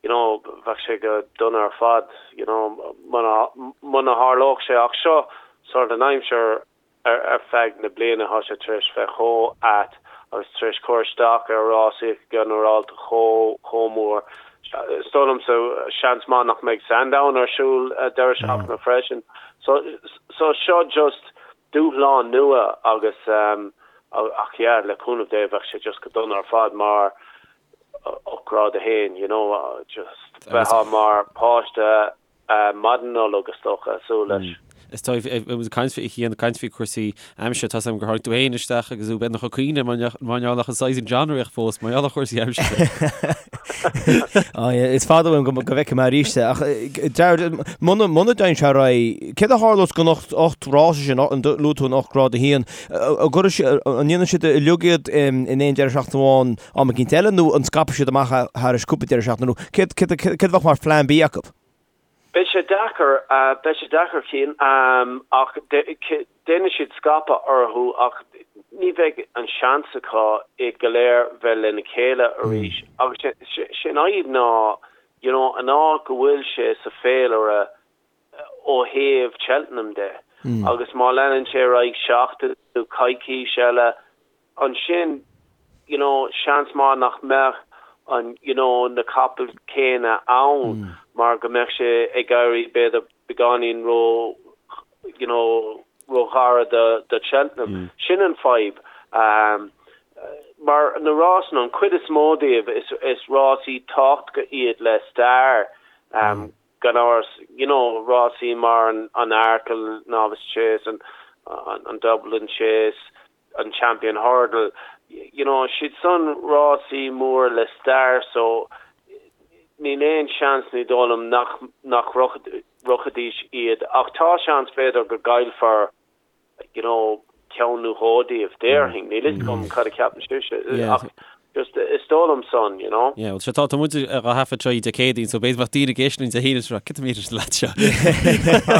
you know bheadh sé go dona ar fad, you know, muna muna tharlódh sé ach seo sort an aimsir Ar feadh na bliana tá sé tar éis bheith chomh ait agus tar éis cur isteach ar rásaíocht ginearálta chomh chomh mór. Is dóigh liomsa seans maith nach mbeidh Sandown ar siúl deireadh seachtaine freisin. So so seo just dúshlán nua agus ach yeah le cúnamh Dé bheadh sé just go dona ar fad mar ó Grád 1 you know just bheifeá mar páiste maidin Nollag is dócha ag súil leis. Is dóigh, ag caint faoi, ag caint faoi cúrsaí aimsire, tá 's agam gur tháinig tú féin isteach agus tú beagnach ag caoineadh mar gheall nach an Sizing John réidh fós, mar gheall ar chúrsaí aimsire. Á, yeah, is fada uaim go bhfeicfidh mé arís é, ach Jared, muna dtéann sé ar aghaidh, céard a tharlós don 8 rás sin, luaigh tú an 8 grád 1, an ndéanfaidh siad uilig iad in aon deireadh seachtaine amháin am eicínt eile nó an scaipfidh siad amach thairis cúpla deireadh seachtaine nó céard a bheadh mar phlean B acu? Beidh sé deacair, beidh sé deacair Cian, ach déanfaidh siad scaipeadh orthu ach ní bheidh an seans acu iad go léir bheith lena chéile arís agus sé an fhadhb ná you know an áit go bhfuil sé sa féilire ó thaobh Cheltenham de agus má leanann sé ar aghaidh seachtain nó coicís eile ansin you know seans maith nach mbeadh an you know na capaill céanna ann mar go mbeadh sé ag éirí b'fhéidir beagáinín ró you know ró ghairid do do Cheltenham. Sin an fadhb. Um, mar na rásanna an chuid is mó díobh is is rásaí tábhachtacha iad le stair um, gan amhras you know rásaí mar an an Arkle Novice Chase an an, an Dublin Chase an Champion Hurdle, you know, siad san rásaí mór le stair so níl aon seans ní dóigh liom nach nach rachaidís iad ach tá seans b'fhéidir go gcaillfear you know ceann nó dhó díobh, déarfainn, níl fhios agam cad a cheapann sibhse ach Just is dóigh liom san, you know. Yeah, well, sure, tá muid á thaifead seo Dé Céadaoin, so b'fhéidir bheadh daoine ag éisteacht linn Dé hAoine seo, cad é na lads seo?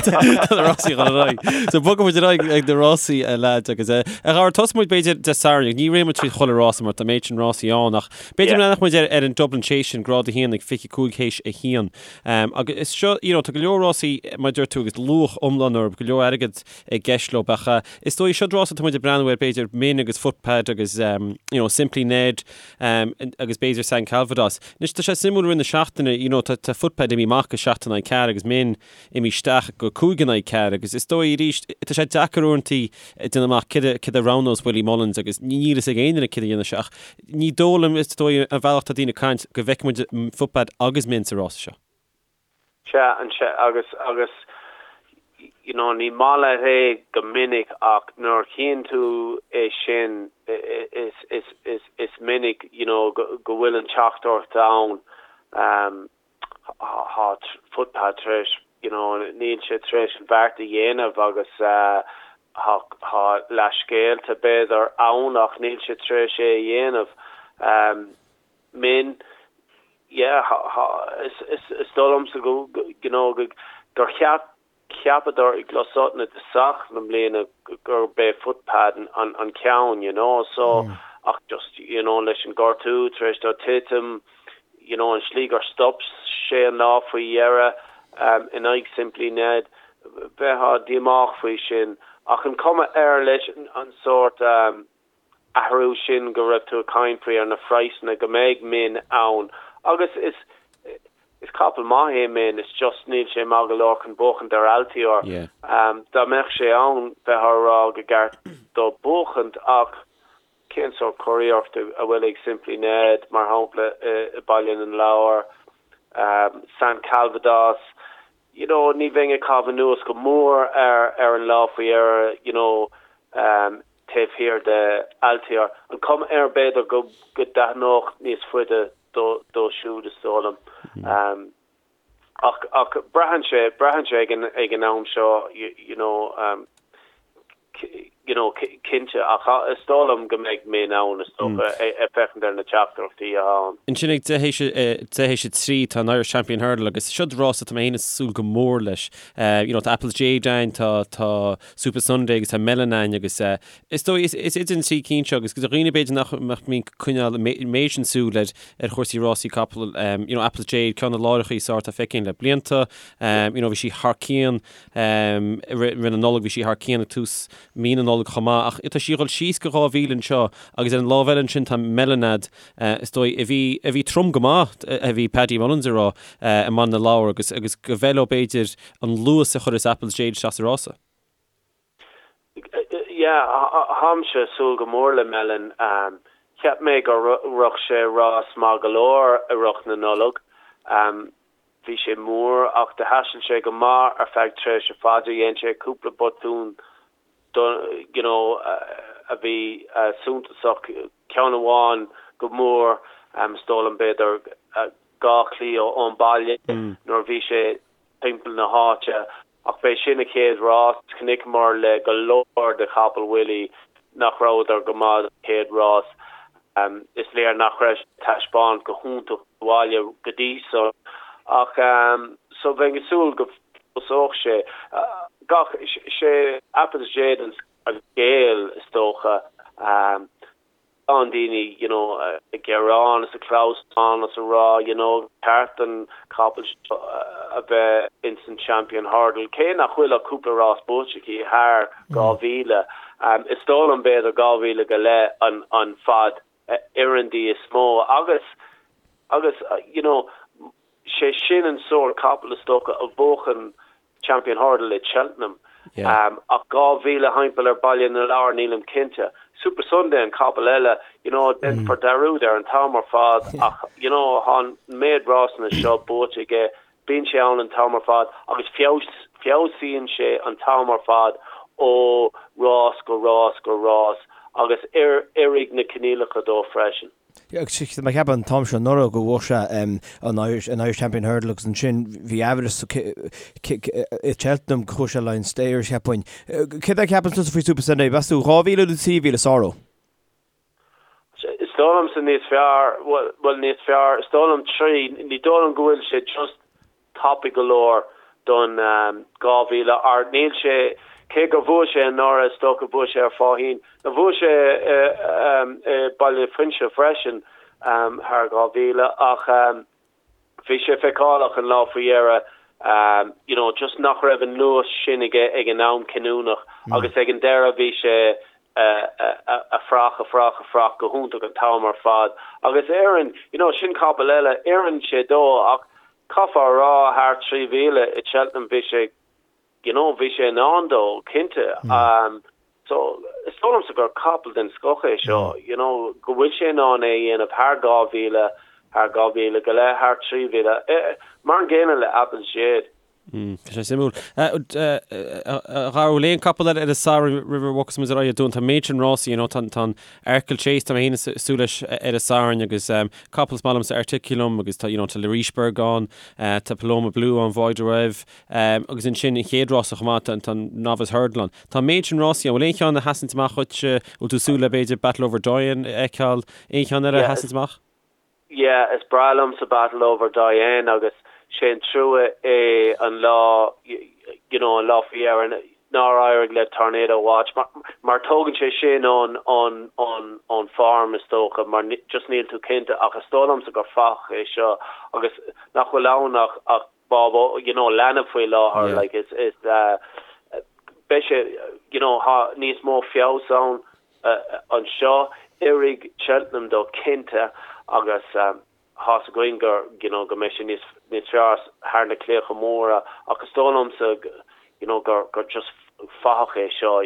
Tá na rásaí ag dul ar aghaidh. So bogfaidh muid ar aghaidh ag na rásaí, a lads, agus eh, a Dhara, tosóidh muid b'fhéidir Dé Sathairn, ní rachaidh muid tríd chuile rása mar tá méid sin rásaí ann, ach b'fhéidir Yeah. leanfadh muid ar, ar an Dublin Chase sin, grád a haon ag 25 théis a haon. Um, agus is seo, you know, tá go leor rásaí, mar a deir tú, agus luach iomlán orthu, go leor airgead i gceist leo. Ach is dóigh, seo rása atá muid ag breathnú air, b'fhéidir Min agus Footpad agus you know Simply Ned agus b'fhéidir San Calvados. Anois tá sé suimiúil i rith na seachtaine, you know tá tá Footpad imithe amach go 7 in aghaidh 4 agus Min imithe isteach go 5 in aghaidh 4 agus is dóigh arís tá sé deacair uaireanta déanamh amach céard a céard a roghnós Willie Mullins agus níl fhios ag aon duine céard a dhéanfaidh sé ach ní dóigh liom is dóigh an bhealach tá daoine ag caint go bhfeicfidh muid Footpad agus Min sa rása seo. Sea, an sea, agus, agus, you know, ní maith leat é go minic ach nuair a chíonn tú é sin, is, is, is, is minic, you know, go, go bhfuil an teachtaireacht ann, um, tá Footpad tar éis, you know, níl sé tar éis an bheart a dhéanamh agus, uh, tá, tá leathscéalta b'fhéidir ann ach níl sé tar éis é a dhéanamh. Um, Min, yeah, is dóigh liomsa go, you know, gur cheap, cheapadar i gCluas Uaithne i dtosach na bliana gurb é Footpad an, an ceann, you know, so, ach just, you know, leis an gortú tar éis dó titim, you know, an slí gur stop sé an lá faoi dheireadh in aghaidh Simply Ned, bheifeá díomách faoi sin. Ach an cuma air leis an sórt, athrú sin go raibh tú ag caint faoi ar na phraghsanna go mbeidh Min ann agus is is capall maith é Min it's just níl sé maith go leor chun buachaint ar Altior. Dá mbeadh sé ann bheifeá ag rá go gceart dó buachaint ach cén sórt cóiríocht a bhfuil ag Simply Ned mar shampla i Baile na Lobhar, San Calvados you know ní bheinn ag caitheamh anuas go mór ar ar an lá faoi dheireadh you know taobh thiar de Altior. An cuma air b'fhéidir go go dtaitneodh níos faide dó dó siúd is dóigh liom. Ach ach braitheann sé braitheann sé ag an ag an am seo you know you know cinnte ach is dóigh liom go mbeidh Min ann is dócha ag féachaint ar na teachtaireachtaí atá ann. Ansin ag deich théis a 3 tá an Irish Champion Hurdle agus seo rás atá mé féin ag súil go mór leis. You know tá Apple's Jade ann, tá tá Supa Sunday agus tá Melon ann agus is dóigh is is idir an trí cinn seo agus do dhaoine b'fhéidir nach nach mbíonn ag coinneáil an méid sin súil ar ar chúrsaí rásaí capall you know Apple's Jade ceann de na láithreacha is fearr atá feicthe againn le blianta you know bhí sí thar cionn I rith na Nollag bhí sí thar cionn ag tús mí na Nollag chomh maith ach tá sí ag dul síos go 2,000 anseo agus ar an lámh eile ansin tá Melanade is dóigh a bhí a bhí trom go maith a bhí Paddy Mullins ag rá i mBaile na Lobhar agus agus go bhfeil leo b'fhéidir an luas a chuirfeas Apple's Jade isteach sa rása. Yeah, táimse ag súil go mór le Melon. Cheap mé gur rith sé rás maith go leor i rith na Nollag. Bhí sé mór ach do thaistil sé go maith ar feadh tréimhse fada. Dhein sé cúpla botún you know a bhí suntasach, ceann amháin go mór is dóigh liom b'fhéidir 2 chlaí ón baile nuair a bhí sé timpeall na háite. Ach b'é sin a chéad rás. Chonaiceamar le go leor de chapaill Willie nach rabhadar go maith sa chéad rás. Is léir nach raibh sé ag taispeáint go hiontach sa bhaile go dtí san. Ach so bheinn ag súil go bhfeabhsódh sé. Gach, sé Apple's Jade an scéal is dócha. Tá daoine you know ag gearán is ag clamhsán is ag rá you know ceart don chapall seo a bheith ins an Champion Hurdle cé nach bhfuil ach cúpla rás buaite aici thar 2,000. Is dóigh liom b'fhéidir 2,000 go leith an an fad a oireann di is mó agus agus you know sé sin an sórt capall is dócha a bhuachan Champion Hurdle i Cheltenham. Ach 2,000 thimpeall ar Baile na Lobhar, nílim cinnte. Supasundae an capall eile, you know, déanfar dearúd air an t-am ar fad ach, you know, tá an méid rásanna seo buaite aige, bíonn sé ann an t-am ar fad agus feabhsaíonn sé an t-am ar fad ó rás go rás go rás agus oirfidh na coinníollacha dó freisin. Tá mé ag ceapadh an t-am seo anuraidh go bhuaigh sé an Irish an Irish Champion Hurdle agus ansin bhí aimhreas i Cheltenham go chuaigh sé le an Stayers cheapfainn. Céard a cheapann tusa faoi Supasundae? Meas tú 2,000 nó 3,000 is fearr dó? Is dóigh liomsa níos fearr, bhuel níos fearr, is dóigh liom 3, ní dóigh liom go bhfuil sé just tapaidh go leor don 2000 ach níl sé, cé gur bhuaigh sé anuraidh, is dócha bhuaigh sé ar Faugheen, nó bhuaigh sé i Baile Fuinse freisin thar 2000 ach bhí sé feiceálach an lá faoi dheireadh you know just nach raibh an luas sin aige ag an am cinniúnach agus ag an deireadh bhí sé a fuireach, a fuireach, a fuireach go hiontach an t-am ar fad agus oireann, you know, sin capall eile, oireann sé dó ach caithfear a rá thar 3,000 i Cheltenham bhí sé, you know, bhí sé in ann dó, cinnte. Um, so, is dóigh liomsa gur capall den scoth é seo, you know, go bhfuil sé in ann é a dhéanamh thar 2,000, thar 2,000 go leith, thar 3,000, eh, mar an gcéanna le Apple's Jade. Tá sé suimiúil. A Dhara, bhfuil aon capall eile ar an Satharn roimh a bhogfas muid ar aghaidh dúinn? Tá an méid sin rásaí, you know, tá an Arkle Chase, tá mé féin ag súil leis ar an Satharn agus capall is maith liomsa Articulum agus tá, you know, tá Le Richebourg ann, tá Paloma Blue ann, Voi de Rêve, agus ansin an chéad rása chomh maith, tá an Novice Hurdle ann. Tá an méid sin rásaí ann. Bhfuil aon cheann a sheasann amach dhuit? Bhfuil tú ag súil le b'fhéidir Battleoverdoyen a fheiceáil? Aon cheann eile a sheasann amach? Yeah, is breá liomsa Battleoverdoyen agus sé an trua é an lá, you know, an lá faoi dheireadh nár éirigh le Tornado Watch mar, mar tógann sé sin ón, ón, ón, ón form is dócha mar just níl tú cinnte ach is dóigh liomsa gur fathach é seo agus nach bhfuil ann ach, ach bábó, you know, leanbh faoi láthair, yeah. like is, is, uh, beidh sé, you know, tá níos mó feabhas ann anseo. Oirfidh Cheltenham dó cinnte agus tá's againn gur, you know, go mbeidh sé níos, níos fearr thar na claíocha móra ach is dóigh liomsa, you know, gur, gur just fathach é seo.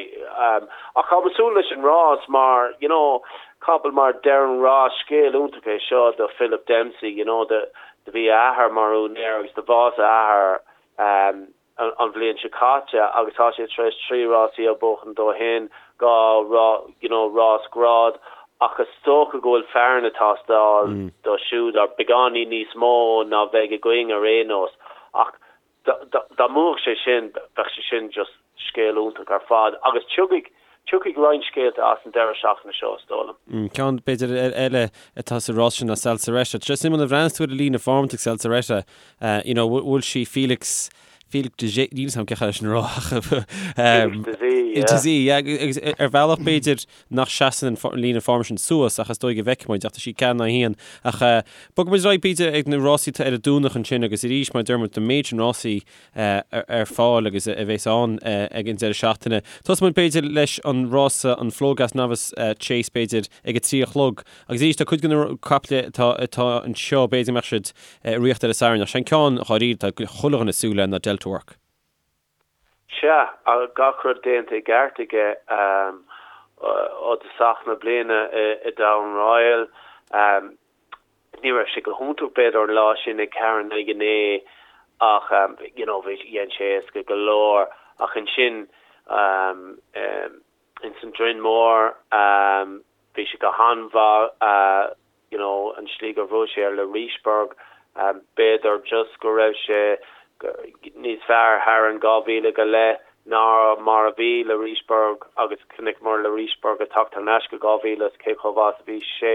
Ach táim ag súil leis an rás mar, you know, capall mar Derryn Ross, scéal iontach é seo do Philip Dempsey, you know, do, do bhí a athair mar úinéir agus do bhásaigh a athair, an bhliain seo caite agus tá sé tar éis 3 rásaí a bhuachan ó shin, 2 you know rás grád ach is dócha go bhfuil fearann ag teastáil dó siúd or beagáinín níos mó ná bheidh againn ar aon nós ach dá mbuafadh sé sin bheadh sé sin just scéal iontach ar fad agus tiocfaidh tiocfaidh roinnt scéalta as an deireadh seachtaine seo is dóigh liom. Ceann b'fhéidir eile atá sa rás sin ná Salsaretta. Tá sé suimiúil nuair a bhreathnaíos tú ar an líne form ag Salsaretta, you know, bhfuil sí Felix Felix de Zé, níl 'fhios a'm cén chaoi leis sin a rá ach Felix de Zé, yeah. De Zé, yeah, agus ar bhealach b'fhéidir nach seasann an líne form sin suas ach is dóigh go bhfeicfidh muid ach tá sí 4-1 ach bogfaidh muid ar aghaidh b'fhéidir ag na rásaí atá ar an Domhnach ansin agus arís mar a deir muid an méid sin rásaí ar fáil agus a bheas ann ag an deireadh seachtaine. Tosóidh muid b'fhéidir leis an rása, an Flogas Novice Chase b'fhéidir, ag a 3 a chlog. Agus arís tá cuid de na caiple atá atá anseo b'fhéidir go mbeadh siad i riocht ar an Satharn ach sé an ceann dháiríre atá chuile dhuine ag súil le ná Delta Work. Sea, gach rud déanta i gceart aige ó thosach na bliana i Down Royal. Ní raibh sé go hiontach b'fhéidir an lá sin ag 4 in aghaidh 9. Ach you know bhí, dhein sé éasca go leor ach ansin ins an Droim Mór bhí sé go han-mhaith you know an slí gur bhuaigh sé ar Le Richebourg b'fhéidir just go raibh sé níos fearr thar an 2,000 go leith ná mar a bhí Le Richebourg agus chonaiceamar Le Richebourg ag teacht thar n-ais go 2,000 is cé chomh mhaith is a bhí sé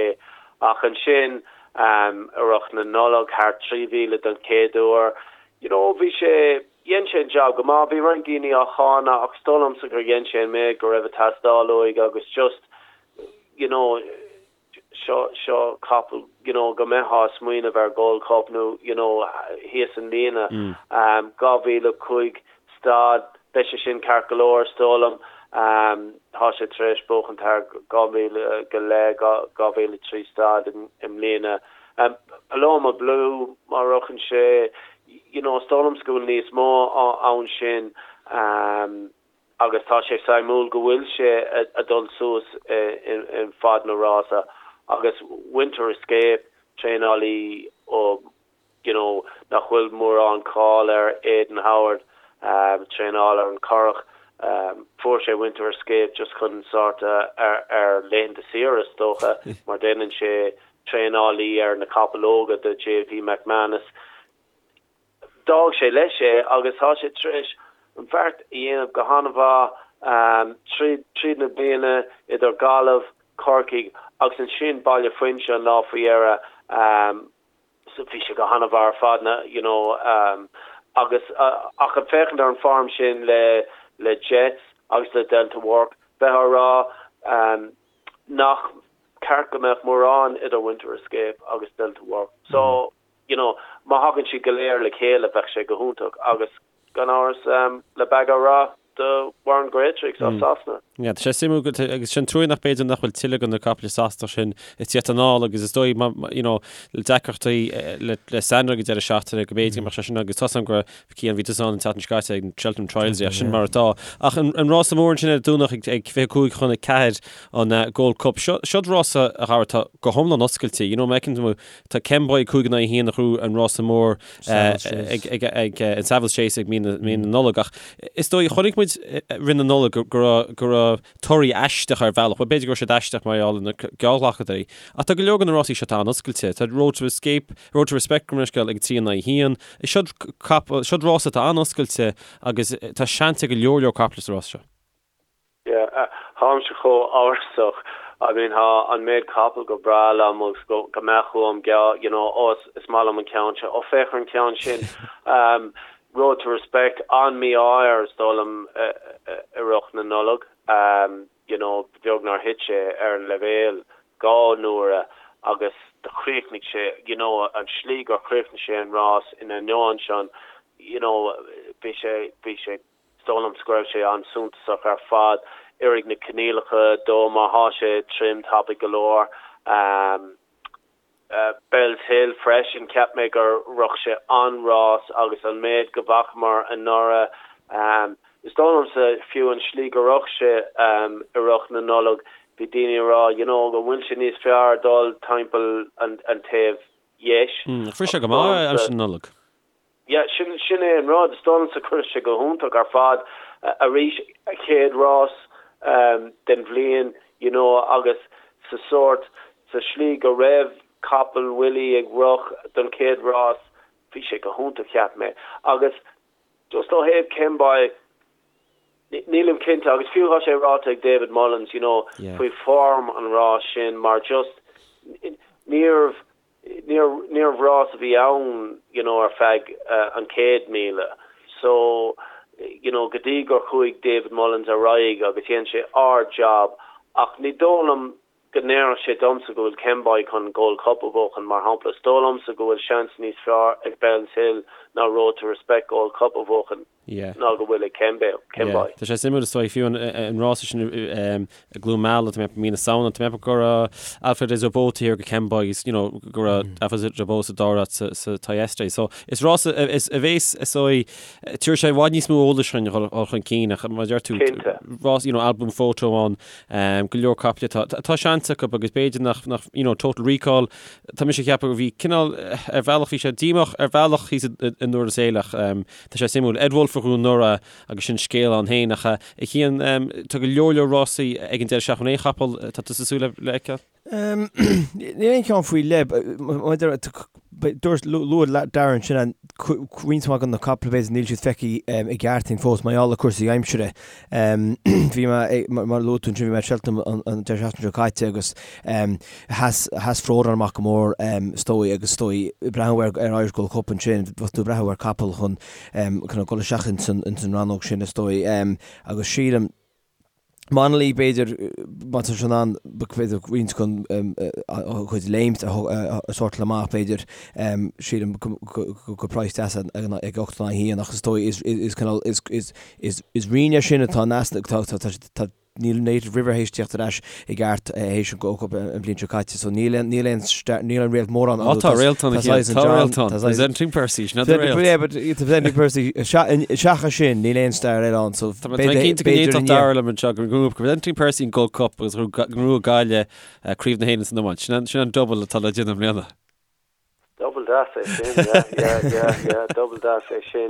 ach ansin i rith na Nollag thar 3,000 don chéad uair you know bhí sé dhein sé an job go maith bhí roinnt daoine á cháineadh ach is dóigh liomsa gur dhein sé an méid go raibh ag teastáil uaidh agus just you know seo seo capall you know go mbeifeá ag smaoineamh ar Gold Cup nó you know thíos an líne 2005 stad beidh sé sin ceart go leor is dóigh liom tá sé tar éis buachan thar 2,000 go leith 2003 stad i mbliana Paloma Blue má rochann sé you know is dóigh liomsa go bhfuil níos mó ann sin agus tá sé suimiúil go bhfuil sé ag dul suas i bhfad na rása agus Winter Escape, traenálaí ó you know nach bhfuil mórán cáil air, Aidan Howard, traenáil ar an Currach, fuair sé Winter Escape just chun sort ar ar laethanta saoire is dócha mar déanann sé traenálaí ar na capaill óga do JP McManus. D'fhág sé leis é agus tá sé tar éis an bheart a dhéanamh go han-mhaith tríd tríd na bliana idir Gaillimh, Corcaigh agus ansin Baile Phuinse an lá faoi dheireadh. Bhí sé go han-mhaith ar fad na you know agus ach ag féachaint ar an form sin le le Jets agus le Delta Work bheifeá ag rá nach ceart go mbeadh mórán idir Winter Escape agus Delta Work. So you know, má thagann siad go léir le chéile bheadh sé go hiontach agus gan amhras le Baga Rath do Warren Greatrex as Sasana. Yeah, tá sé suimiúil go agus sin trua nach b'fhéidir nach bhfuil tuilleadh de na caiple Sasanach sin ag tíocht anall agus is dóigh you know, le deacrachtaí le le Sandown ag an deireadh seachtaine go mb'fhéidir go mbeadh sé sin agus tá a fhios agam go raibh Cian bhí tusa ann an tseachtain seo caite ag an Cheltenham Trials yeah, sin mar atá. Ach an, an rása mór ansin ar an Domhnach ag, ag 25 chun 4 an uh, Gold Cup. Seo, seo rása a Dhara atá go hiomlán oscailte. You know, má fheiceann tú Tá Kemboy 5 in aghaidh 1 a ghnóthaigh an rása mór ag an Savills Chase ag mí na Nollag ach is dóigh, chonaic muid roimh na Nollag go raibh torthaí aisteach ar bhealach, bhuel b'fhéidir go raibh siad aisteach mar gheall ar na geallghlacadóirí ach tá go leor de na rásaí seo atá an-oscailte. Tá Road to Escape, Road to Respect gabh mo leithscéal ag 3 in aghaidh 1. Seo rása atá an-oscailte agus tá seans ag go leor leor caiple sa rás seo. Yeah, táimse chomh amhrasach. I mean, tá an méid capall go breá liom agus go go mbeadh uaim geall, you know, oh is is maith liom an ceann seo, oh féach ar an ceann sin. Um, Road to Respect, an-mhí-ádh air is dóigh liom i rith na Nollag. Um, you know, beag nár thit sé ar an leibhéal dhá n-uaire agus do chríochnaigh sé, you know, an slí gur chríochnaigh sé an rás ina ainneoin sin, you know, bhí sé, bhí sé Is dóigh liomsa go raibh sé an-suntasach ar fad. Oirfidh na coinníollacha dó má thá sé trim tapaidh go leor. Bellshill freisin, cheap mé gur rith sé an-rás agus an méid go bhfacamar anuraidh, is dóigh liomsa fiú an slí go rith sé i rith na Nollag, bhí daoine ag rá you know go bhfuil sé níos fearr dul timpeall an taobh dheis. Ach rith sé go maith aimsir na Nollag. Yeah, sin, sin é an rud. Is dóigh liomsa chuir sé go hiontach ar fad arís, a chéad rás den bhliain, you know, agus sa sórt, sa slí go raibh capall Willie ag rith don chéad rás, bhí sé go hiontach, cheap mé. Agus just ó thaobh Kemboy, nílim cinnte, agus fiú tá sé ráite ag David Mullins, you know, faoi form an rás sin mar just níorbh Níorbh rás a bhí ann you know ar feadh an 100,000 so you know go dtí gur chuaigh David Mullins ar aghaidh agus dhein sé ard-job ach ní dóigh liom go ndéarfadh sé domsa go bhfuil Kemboy chun Gold Cup a bhuachan mar shampla. Is dóigh liomsa go bhfuil seans níos fearr ag Bellshill ná Road to Respect Gold Cup a bhuachan. Ná go bhfuil ag Kemboy. Tá sé suimiúil is dóigh, fiú an rása sin i gCluain Meala, tá mé ag ceapadh mí na Samhna, tá mé ag ceapadh go raibh Alfred Des Obeaux thiar go Kemboy agus you know go raibh Alfred Des Obeaux sa dara háit sa Thyestes. So is rása a bhéas is dóigh, tabharfaidh sé i bhfad níos mó eolais chun dhul chun cinn ach mar a deir tú, rás you know Al Boum Photo ann, go leor caiple atá, tá seans acu agus b'fhéidir nach, nach you know Total Recall, tá mise ag ceapadh go bhí cineál ar bhealach bhí sé díomách ar bhealach thíos i nDurlas Éile ach Tá sé suimiúil. Ed Woulfe a ghnóthaigh anuraidh agus sin scéal ann féin ach a Chian, tá go leor leor rásaí ag an deireadh seachtaine. Aon chapall atá tusa ag súil le fheiceáil? Níl aon cheann faoi leith. Dúirt, luaigh Darren sin an roinnt mhaith de na caiple b'fhéidir níl siad feicthe i gceart againn fós mar gheall ar cúrsaí aimsire. Bhí mé, mar a luaigh tú ansin, bhí mé ag Cheltenham an deireadh seachtaine seo caite agus Sheas, sheas Frodon amach go mór is dóigh agus is dóigh breathnú ar ar Irish Gold Cup ansin, bheadh tú ag breathnú ar capall chun chun dul isteach ins an ins an rannóg sin is dóigh. Agus sílim Monalee b'fhéidir má tá sé in ann b'fhéidir roinnt den a chuid léimt a a shórtáil amach b'fhéidir sílim go go go praghas deas ag ag 8 in aghaidh 1 ach is dóigh is is cineál is is is is rian é sin atá in easnamh tá tá tá Níl Native River théis tíocht ar ais i gceart théis an Gold Cup an bhliain seo caite so níl aon níl aon níl aon réalt mór ann Á tá réalt ann a Cian, tá réalt ann. Presenting Percy, sin an réalt. Yeah but Presenting Percy seachas sin níl aon star eile ann so Tá mé cinnte go n-aontódh Dara liom anseo go ngnóthódh Presenting Percy an Gold Cup agus go ngnóthódh Gaillimh Craobh na hÉireann san iomáint. Sin an double atá le déanamh i mbliana. Double deas é sin, yeah, yeah, yeah, yeah, double deas é sin.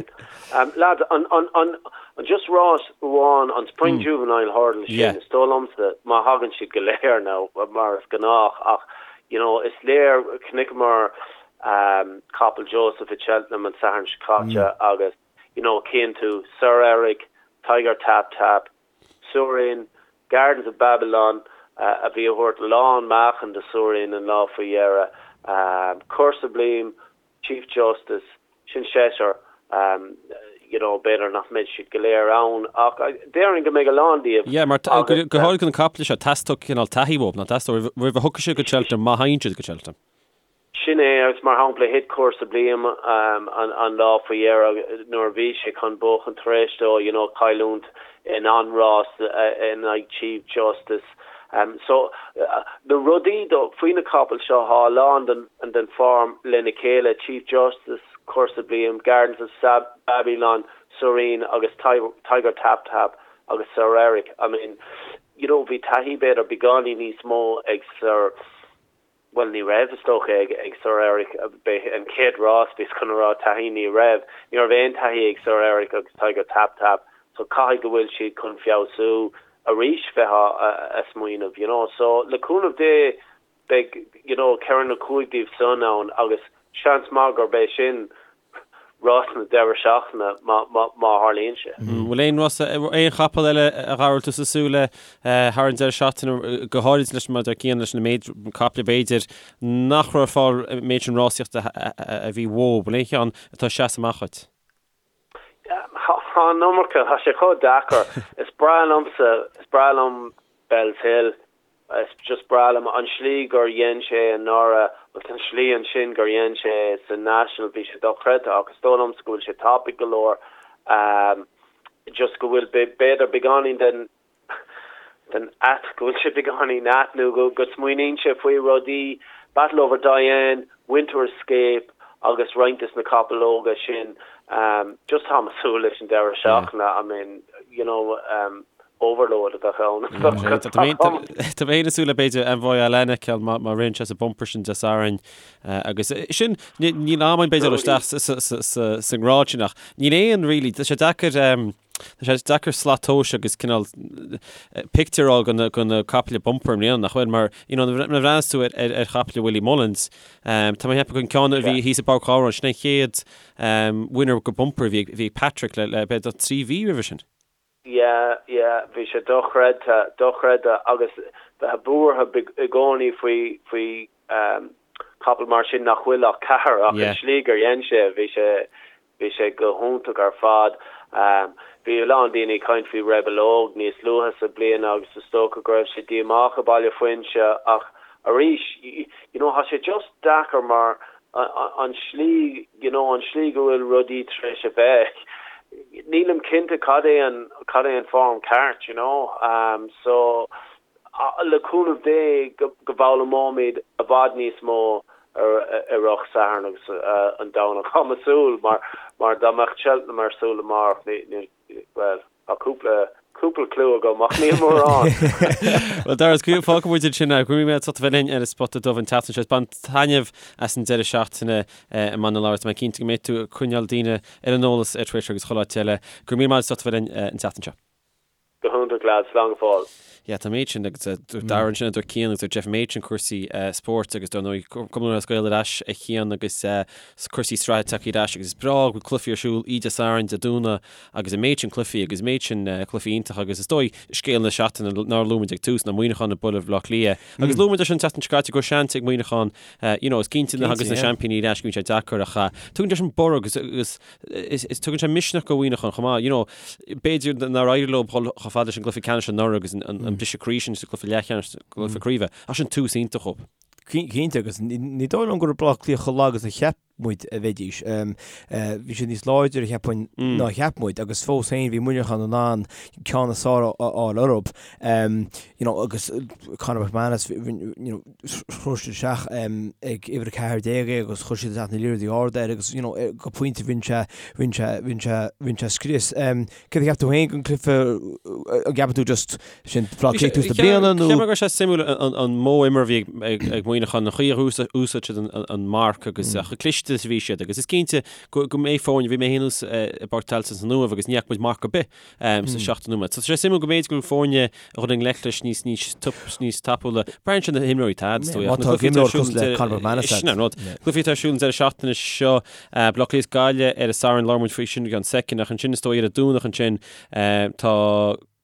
Um, lads, an, an, an, an just rás amháin, an Spring mm. Juvenile Hurdle sin, yeah. is dóigh liomsa, má thagann siad go léir now, mar is gnách, ach, you know, is léir, chonaiceamar um, capall Joseph i Cheltenham an Satharn seo caite mm. agus, you know, cíonn tú, Sir Eric, Tiger Tap Tap, Surin, Gardens of Babylon, a bhí a thabhairt lán meáchain do Surin an lá faoi dheireadh, Coeur Sublime, Chief Justice, sin seisear, you know, b'fhéidir nach mbeidh siad go léir ann ach déarfainn go mbeidh a lán díobh. Yeah, mar go háirithe na caiple seo, teastóidh cineál taithí uathu, nach dteastóidh, roimh a thiocfaidh siad go Cheltenham, má thagann siad go Cheltenham. Sin é, agus mar shampla, thit Coeur Sublime an lá faoi dheireadh nuair a bhí sé chun buachan tar éis dó, you know, cailliúint in an-rás in aghaidh Chief Justice. So, na rudaí faoi na capaill seo, tá a lán den form lena chéile, Chief Justice, Coeur Sublime, Gardens of Babylon, Surin agus Tiger Tap Tap agus Sir Eric. I mean, you know, bhí taithí b'fhéidir beagáinín níos mó ag Sir. Bhuel, ní raibh, is dócha, ag Sir Eric. B'é an chéad rás, bhíos chun a rá taithí, ní raibh. Ní raibh aon taithí ag Sir Eric agus Tiger Tap Tap, so caithfidh go bhfuil siad chun feabhsú arís, bheifeá a smaoineamh, you know. So, le cúnamh Dé, beidh, you know, ceithre nó cúig díobh san ann agus seans maith gurb é sin rás na deireadh seachtaine má tharlaíonn sé. Bhfuil aon rás, aon chapall eile a Dhara a bhfuil tusa ag súil le thar an deireadh seachtaine, go háirid leis mar a deir Cian leis na méid caiple b'fhéidir nach raibh ar fáil an méid sin rásaíochta a bhí uathu. Bhfuil aon cheann atá ag seasamh amach dhuit? Tá an iomarca, tá sé chomh deacair. Is breá liomsa, is breá liom Bellshill. Is just breá liom an slí gur dhein sé anuraidh agus an slí ansin gur dhein sé sa National, bhí sé dochreidte ach is dóigh liomsa go bhfuil sé tapaidh go leor, just go bhfuil b'fhéidir beagáinín den den ait, go bhfuil sé beagáinín ait nó go go smaoiníonn sé faoi rudaí, Battleoverdoyen, Winter Escape agus roinnt des na capaill óga sin, just táim ag súil leis an deireadh seachtaine, I mean, you know, overload a bheadh ann. Tá mé féin ag súil le b'fhéidir Envoi Allen a fheiceáil má ritheann sé sa bumper sin Dé Sathairn agus sin níl am againn b'fhéidir dul isteach sa ngrád sin ach níl aon really tá sé deacair tá sé deacair slat tomhais agus cineál pictiúr a fháil de na caiple bumper i mbliana nach bhfuil mar you know nuair a bhreathnaíos tú ar chaiple Willie Mullins tá mé ag ceapadh an ceann a bhí thíos i bPáirc Ghabhráin sin an chéad winner go bumper a bhí ag Patrick le b'fhéidir 3 mhí roimhe sin. Yeah, yeah, bhí sé dochreidte, dochreidte agus bheith buartha i gcónaí faoi, faoi capall mar sin nach bhfuil ach ceathair ach an slí gur dhein sé, bhí sé, bhí sé go hiontach ar fad. Bhí a lán daoine ag caint faoi Rebel Óg níos luaithe sa bliain agus is dócha go raibh sé díomách i Baile Fuinse ach arís, you know, tá sé just deacair mar an slí, you know, an slí go bhfuil rudaí tar éis a bheith. Nílim cinnte cad é an cad é an form ceart, you know. Um, so le cúnamh Dé go go bhfoghlaimeoimid i bhfad níos mó ar ar an Satharn agus an Domhnach. Tá mé ag súil mar mar dá mbeadh Cheltenham ar siúl amárach ní ní bhuel tá cúpla cúpla clue agam ach níl mórán. Bhuel Dara, fágfaidh muid ansin é. Go raibh míle maith agat as ucht a bheith linn ar an Spota Dubh an tseachtain seo. Bain taitneamh as an deireadh seachtaine i mBaile na Lobhar. Tá mé cinnte go mbeidh tú ag coinneáil daoine ar an eolas ar Twitter agus chuile áit eile. Go raibh míle maith agat as ucht a bheith linn an tseachtain seo. Go hiontach lads, slán go fóill. Yeah, tá an méid sin agus dúirt Dara ansin, dúirt Cian agus dúirt Jeff an méid sin cúrsaí spóirt agus dar ndóigh Cumann Lúthchleas Gael ar ais a Chian agus cúrsaí sraithe tagtha ar ais agus is breá go bhfuil cluichí ar siúl oíche Dé Sathairn, Dé Domhnaigh agus an méid sin cluichí agus an méid sin cluichí iontacha agus is dóigh scéal na seachtaine nár luaigh muid ag tús ná Muineachán ag bualadh Bhaile Átha Cliath agus luaigh muid é sin an tseachtain seo caite go raibh seans ag Muineachán you know is cinnte nuair a thagas na seaimpíní ar ais go mbíonn sé deacair ach tugann sé sin borradh agus agus is tugann sé misneach do Mhuineachán chomh maith. You know, b'fhéidir nár éirigh leo dhul chomh fada leis an gcluiche ceannais anuraidh agus an briseadh croí sin sa gcluiche leathcheannais, gcluiche craoibhe, ach sin tús iontach dhóibh. Cinnte, agus ní dóigh liom go raibh Baile Átha Cliath chomh lag is a cheap muid a bheidís. Bhí siad níos láidre, cheapfainn, ná a cheap muid, agus fós féin bhí Muineachán in ann ceann is fearr a fháil orthu. You know, agus Conor McManus, you know, chuir siad isteach ag uimhir 14 é agus chuir siad isteach na liathróidí arda air agus you know, go pointe rinne sé, rinne sé, rinne sé, rinne sé scrios. Céard a cheap tú féin den cluiche, an gceapann tú just sin Baile Átha Cliath tús na bliana nó? Cheap mé go raibh sé suimiúil an modh imeartha a bhí ag Muineachán, an chaoi a úsáid siad an marc agus chomh cliste is a bhí siad agus is cinnte go mbeidh foirne, bhí mé féin thuas i bPáirc Tailteann san Uaimh agus ní fhaca muid marc ar bith sa seachtó nóiméad. So tá sé suimiúil go mb'fhéidir go bhfuil foirne a dhul i ngleic leis níos níos níos tapúla. Braitheann sé na himreoirí atá agat, is dóigh. Má tá imreoir cosúil le Conor McManus agat. Sin an rud. Cluichí atá ar siúl an deireadh seachtaine seo, Baile Átha Cliath is Gaillimh ar an Satharn, labhróidh muid faoi sin i gceann soicind, ach ansin is dóigh ar an Domhnach ansin tá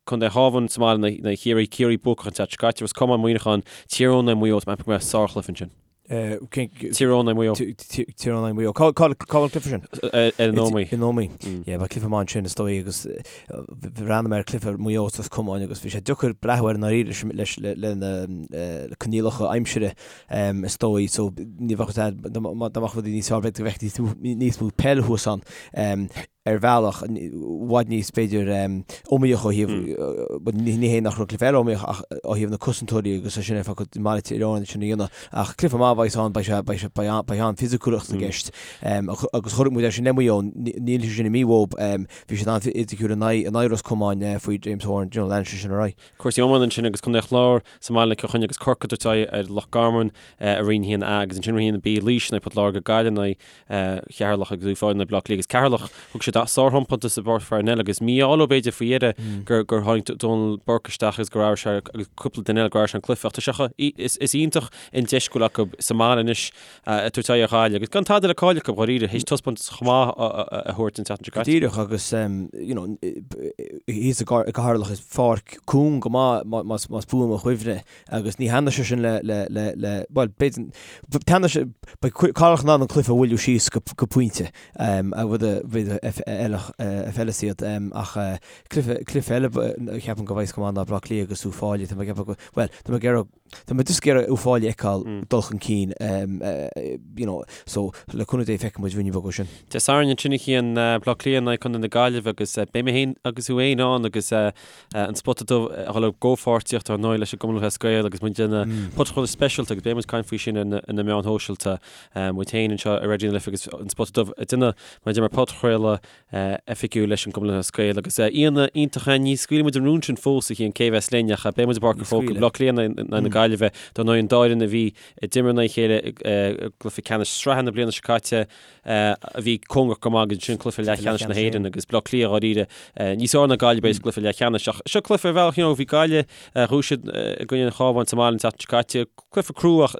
Contae an Chabháin sa mbaile in aghaidh Chiarraí, Ciarraí buacach an tseachtain seo caite, Ros Comáin, Muineachán, Tír Eoghain in aghaidh Maigh Eo, tá mé ag ceapadh go mbeidh sárchluiche ansin. Tír Eoghain in aghaidh Maigh Eo. Tír Eoghain in aghaidh Maigh Eo. Cá bhfuil an cluiche sin? Ar an Ómaigh. In Ómaigh. Yeah, beidh cluiche maith ansin is dóigh agus bhreathnaigh mé ar cluiche Maigh Eo is Ros Comáin agus bhí sé deacair breathnú air i ndáiríre leis le na coinníollacha aimsire is dóigh so ní bheadh dá mbeadh rudaí níos fearr b'fhéidir go bhfeicfí níos mó peil thuas ann. ar bhealach, i bhfad níos, b'fhéidir, iomaíoch ó thaobh, ní hé nach raibh cluiche eile iomaíoch ach ó thaobh na cosantóirí agus é sin ar fad i mBaile Thír Eoghain sin a dhéanamh. Ach cluiche maith a bheas ann, beidh sé, beidh sé, beidh an-fhisiciúlacht i gceist. Agus chonaic muid é sin le Maigh Eo, níl sé sin imithe uathu, bhí siad an-fhisiciúil in aghaidh, in aghaidh Ros Comáin faoi James Horan, you know, leanann sé sin ar aghaidh. Cúrsaí iomána ansin agus Contae an Chláir sa mbaile Cill Chainnigh agus Corcaigh ag tabhairt aghaidh ar Loch Garman i Roinn 1A agus ansin Roinn 1B Laois in aghaidh Port Láirge Gaillimh in aghaidh Cheatharlach agus Uíbh Fhailí in aghaidh Bleá Cliath agus Ceatharlach thug siad sárthaispeántas i bPáirc Pharnell agus mí-ádh leo b'fhéidir faoi dheireadh gur gur tháinig Donal Burke isteach agus gur athraigh sé agus cúpla duine eile gur athraigh sé an cluiche ach tá sé chomh is is iontach an deis go bhfuil acu sa mbaile anois ag tabhairt aghaidh ar Ghaillimh agus gan tada le cailleadh acu dháiríre théis taispeántas chomh maith a thabhairt an tseachtain seo caite. Díreach agus you know thíos i gCeatharlach is pháirc cúng go maith más más buan mo chuimhne Agus ní thaitneoidh sé sin le, le, le, le, bhuel, b'fhéidir, taitneoidh sé, beidh Ceatharlach in ann an cluiche a mhoilliú síos go, go pointe, a rud a, b'fhéidir, a fheileas iad, ach cluiche, cluiche eile a cheapaim go bheidh go maith ná Baile Átha Cliath agus Uíbh Fhailí, tá mé ag ceapadh go, bhuel, tá mé ag iarraidh, tá mé just ag iarraidh Uíbh Fhailí a fheiceáil dul chun cinn, you know, so le cúnamh Dé feicfidh muid ruainne beag ó sin. Dé Sathairn ansin a Chian, Baile Átha Cliath in aghaidh Contae na Gaillimhe agus beidh mé féin agus thú féin ann agus An Spota Dubh a dhul i gcomhpháirtíocht ar ndóigh leis an gCumann Lúthchleas Gael agus muid ag déanamh podchraoladh speisialta agus beidh muid ag caint faoi sin ar na meáin shóisialta. Muid féin anseo ar Raidió na Life agus an Spota Dubh ag déanamh mar a deir mé podchraoladh oifigiúil leis an gCumann Lúthchleas Gael agus aíonna iontacha ní scaoilfidh muid an rún sin fós a Chian cé a bheas linn ach beidh muid i bPáirc an Chrócaigh, Baile Átha Cliath in aghaidh na Gaillimhe dar ndóigh an dá fhoireann a bhí ag imirt in aghaidh a chéile i gcluiche ceannais sraithe na bliana seo caite. a bhí cóngarach go maith agus ansin cluiche leathcheannais na hÉireann agus Baile Átha Cliath dháiríre níos fearr ná Gaillimh b'fhéidir sa gcluiche leathcheannais. Ach seo cluiche ar bhealach, you know, bhí Gaillimh, bhuaigh siad i gcoinne an Chabháin sa mbaile an tseachtain seo caite. Cluiche crua ach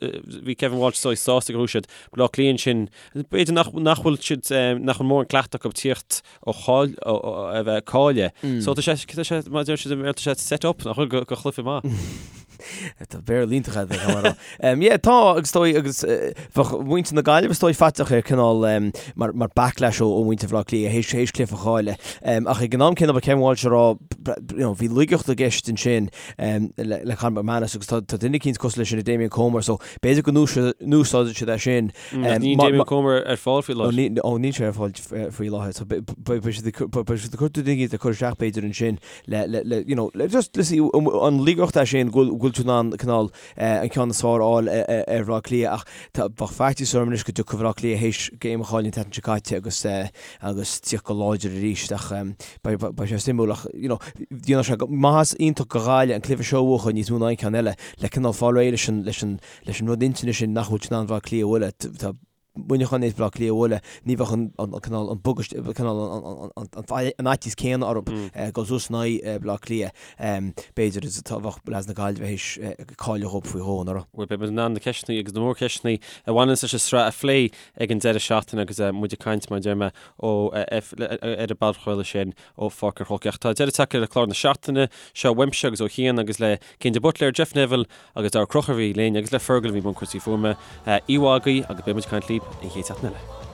bhí Kevin Walsh is dóigh sásta gur bhuaigh siad. Baile Átha Cliath ansin, b'fhéidir nach nach bhfuil siad nach bhfuil mórán cleachtadh acu tíocht ó cháil ó a bheith caillte. So tá sé tá sé mar a deir siad i mBéarla tá sé set up nach bhfuil go chluiche maith. Tá Béarla iontach agat, a Mhara. Yeah, tá, agus is dóigh, agus bheadh muintir na Gaillimhe is dóigh faiteach ar cineál mar mar backlash ó ó mhuintir Bhaile Átha Cliath théis théis cluiche a chailleadh. Ach ag an am céanna ba Kevin Walsh a rá, you know, bhí laigeacht i gceist ansin le le Conor McManus agus tá tá duine eicínt cosúil leis sin i Damien Comer so b'fhéidir go n-úsáideann siad é sin. Níl Damien Comer ar fáil faoi láthair. Ó níl sé ar fáil faoi láthair. So beidh siad ag cur duine eicínt a chur isteach b'fhéidir ansin le, le, le, you know, le just, le see, an laigeacht é sin go bhfuil tú in ann cineál an ceann is fearr a fháil ar Bhaile Átha Cliath ach tá, bheadh faitíos orm anois go dtiocfadh Baile Átha Cliath théis game a chailleadh an tseachtain seo caite agus, agus tíocht go láidir arís ach beidh, beidh sé suimiúil ach, you know, dhéanfadh sé maitheas iontach do Ghaillimh an cluiche seo a bhuachan níos mó ná aon cheann eile le cineál fáil réidh leis an, leis an, leis an rud intinne sin nach bhfuil siad in ann Baile Átha Cliath a bhualadh. Tá Muineachán théis Baile Átha Cliath a bhualadh, ní bheadh an cineál, an bugust, cineál an fhaitíos céanna orthu dul suas in aghaidh Baile Átha Cliath. B'fhéidir is atá bheadh leaids na Gaillimhe théis cailleadh dhóibh faoi dhó anuraidh. Bhuel, beidh muid in ann na ceisteanna agus na mórcheisteanna a bhaineanns leis an sraith a phlé ag an deireadh seachtaine agus muid ag caint, mar a deir mé, ó ar an bpodchraoladh sin ó Pháirc an Chrócaigh. Ach tá deireadh tagtha le clár na seachtaine seo uaimse agus ó Chian agus le Cian de Buitléar, Jeff Neville agus Darragh Ó Conchúir a bhí linn agus le Fergal a bhí i mbun cúrsaí fuaime. Oíche mhaith agaibh agus beidh muid ag caint libh an chéad seachtain eile.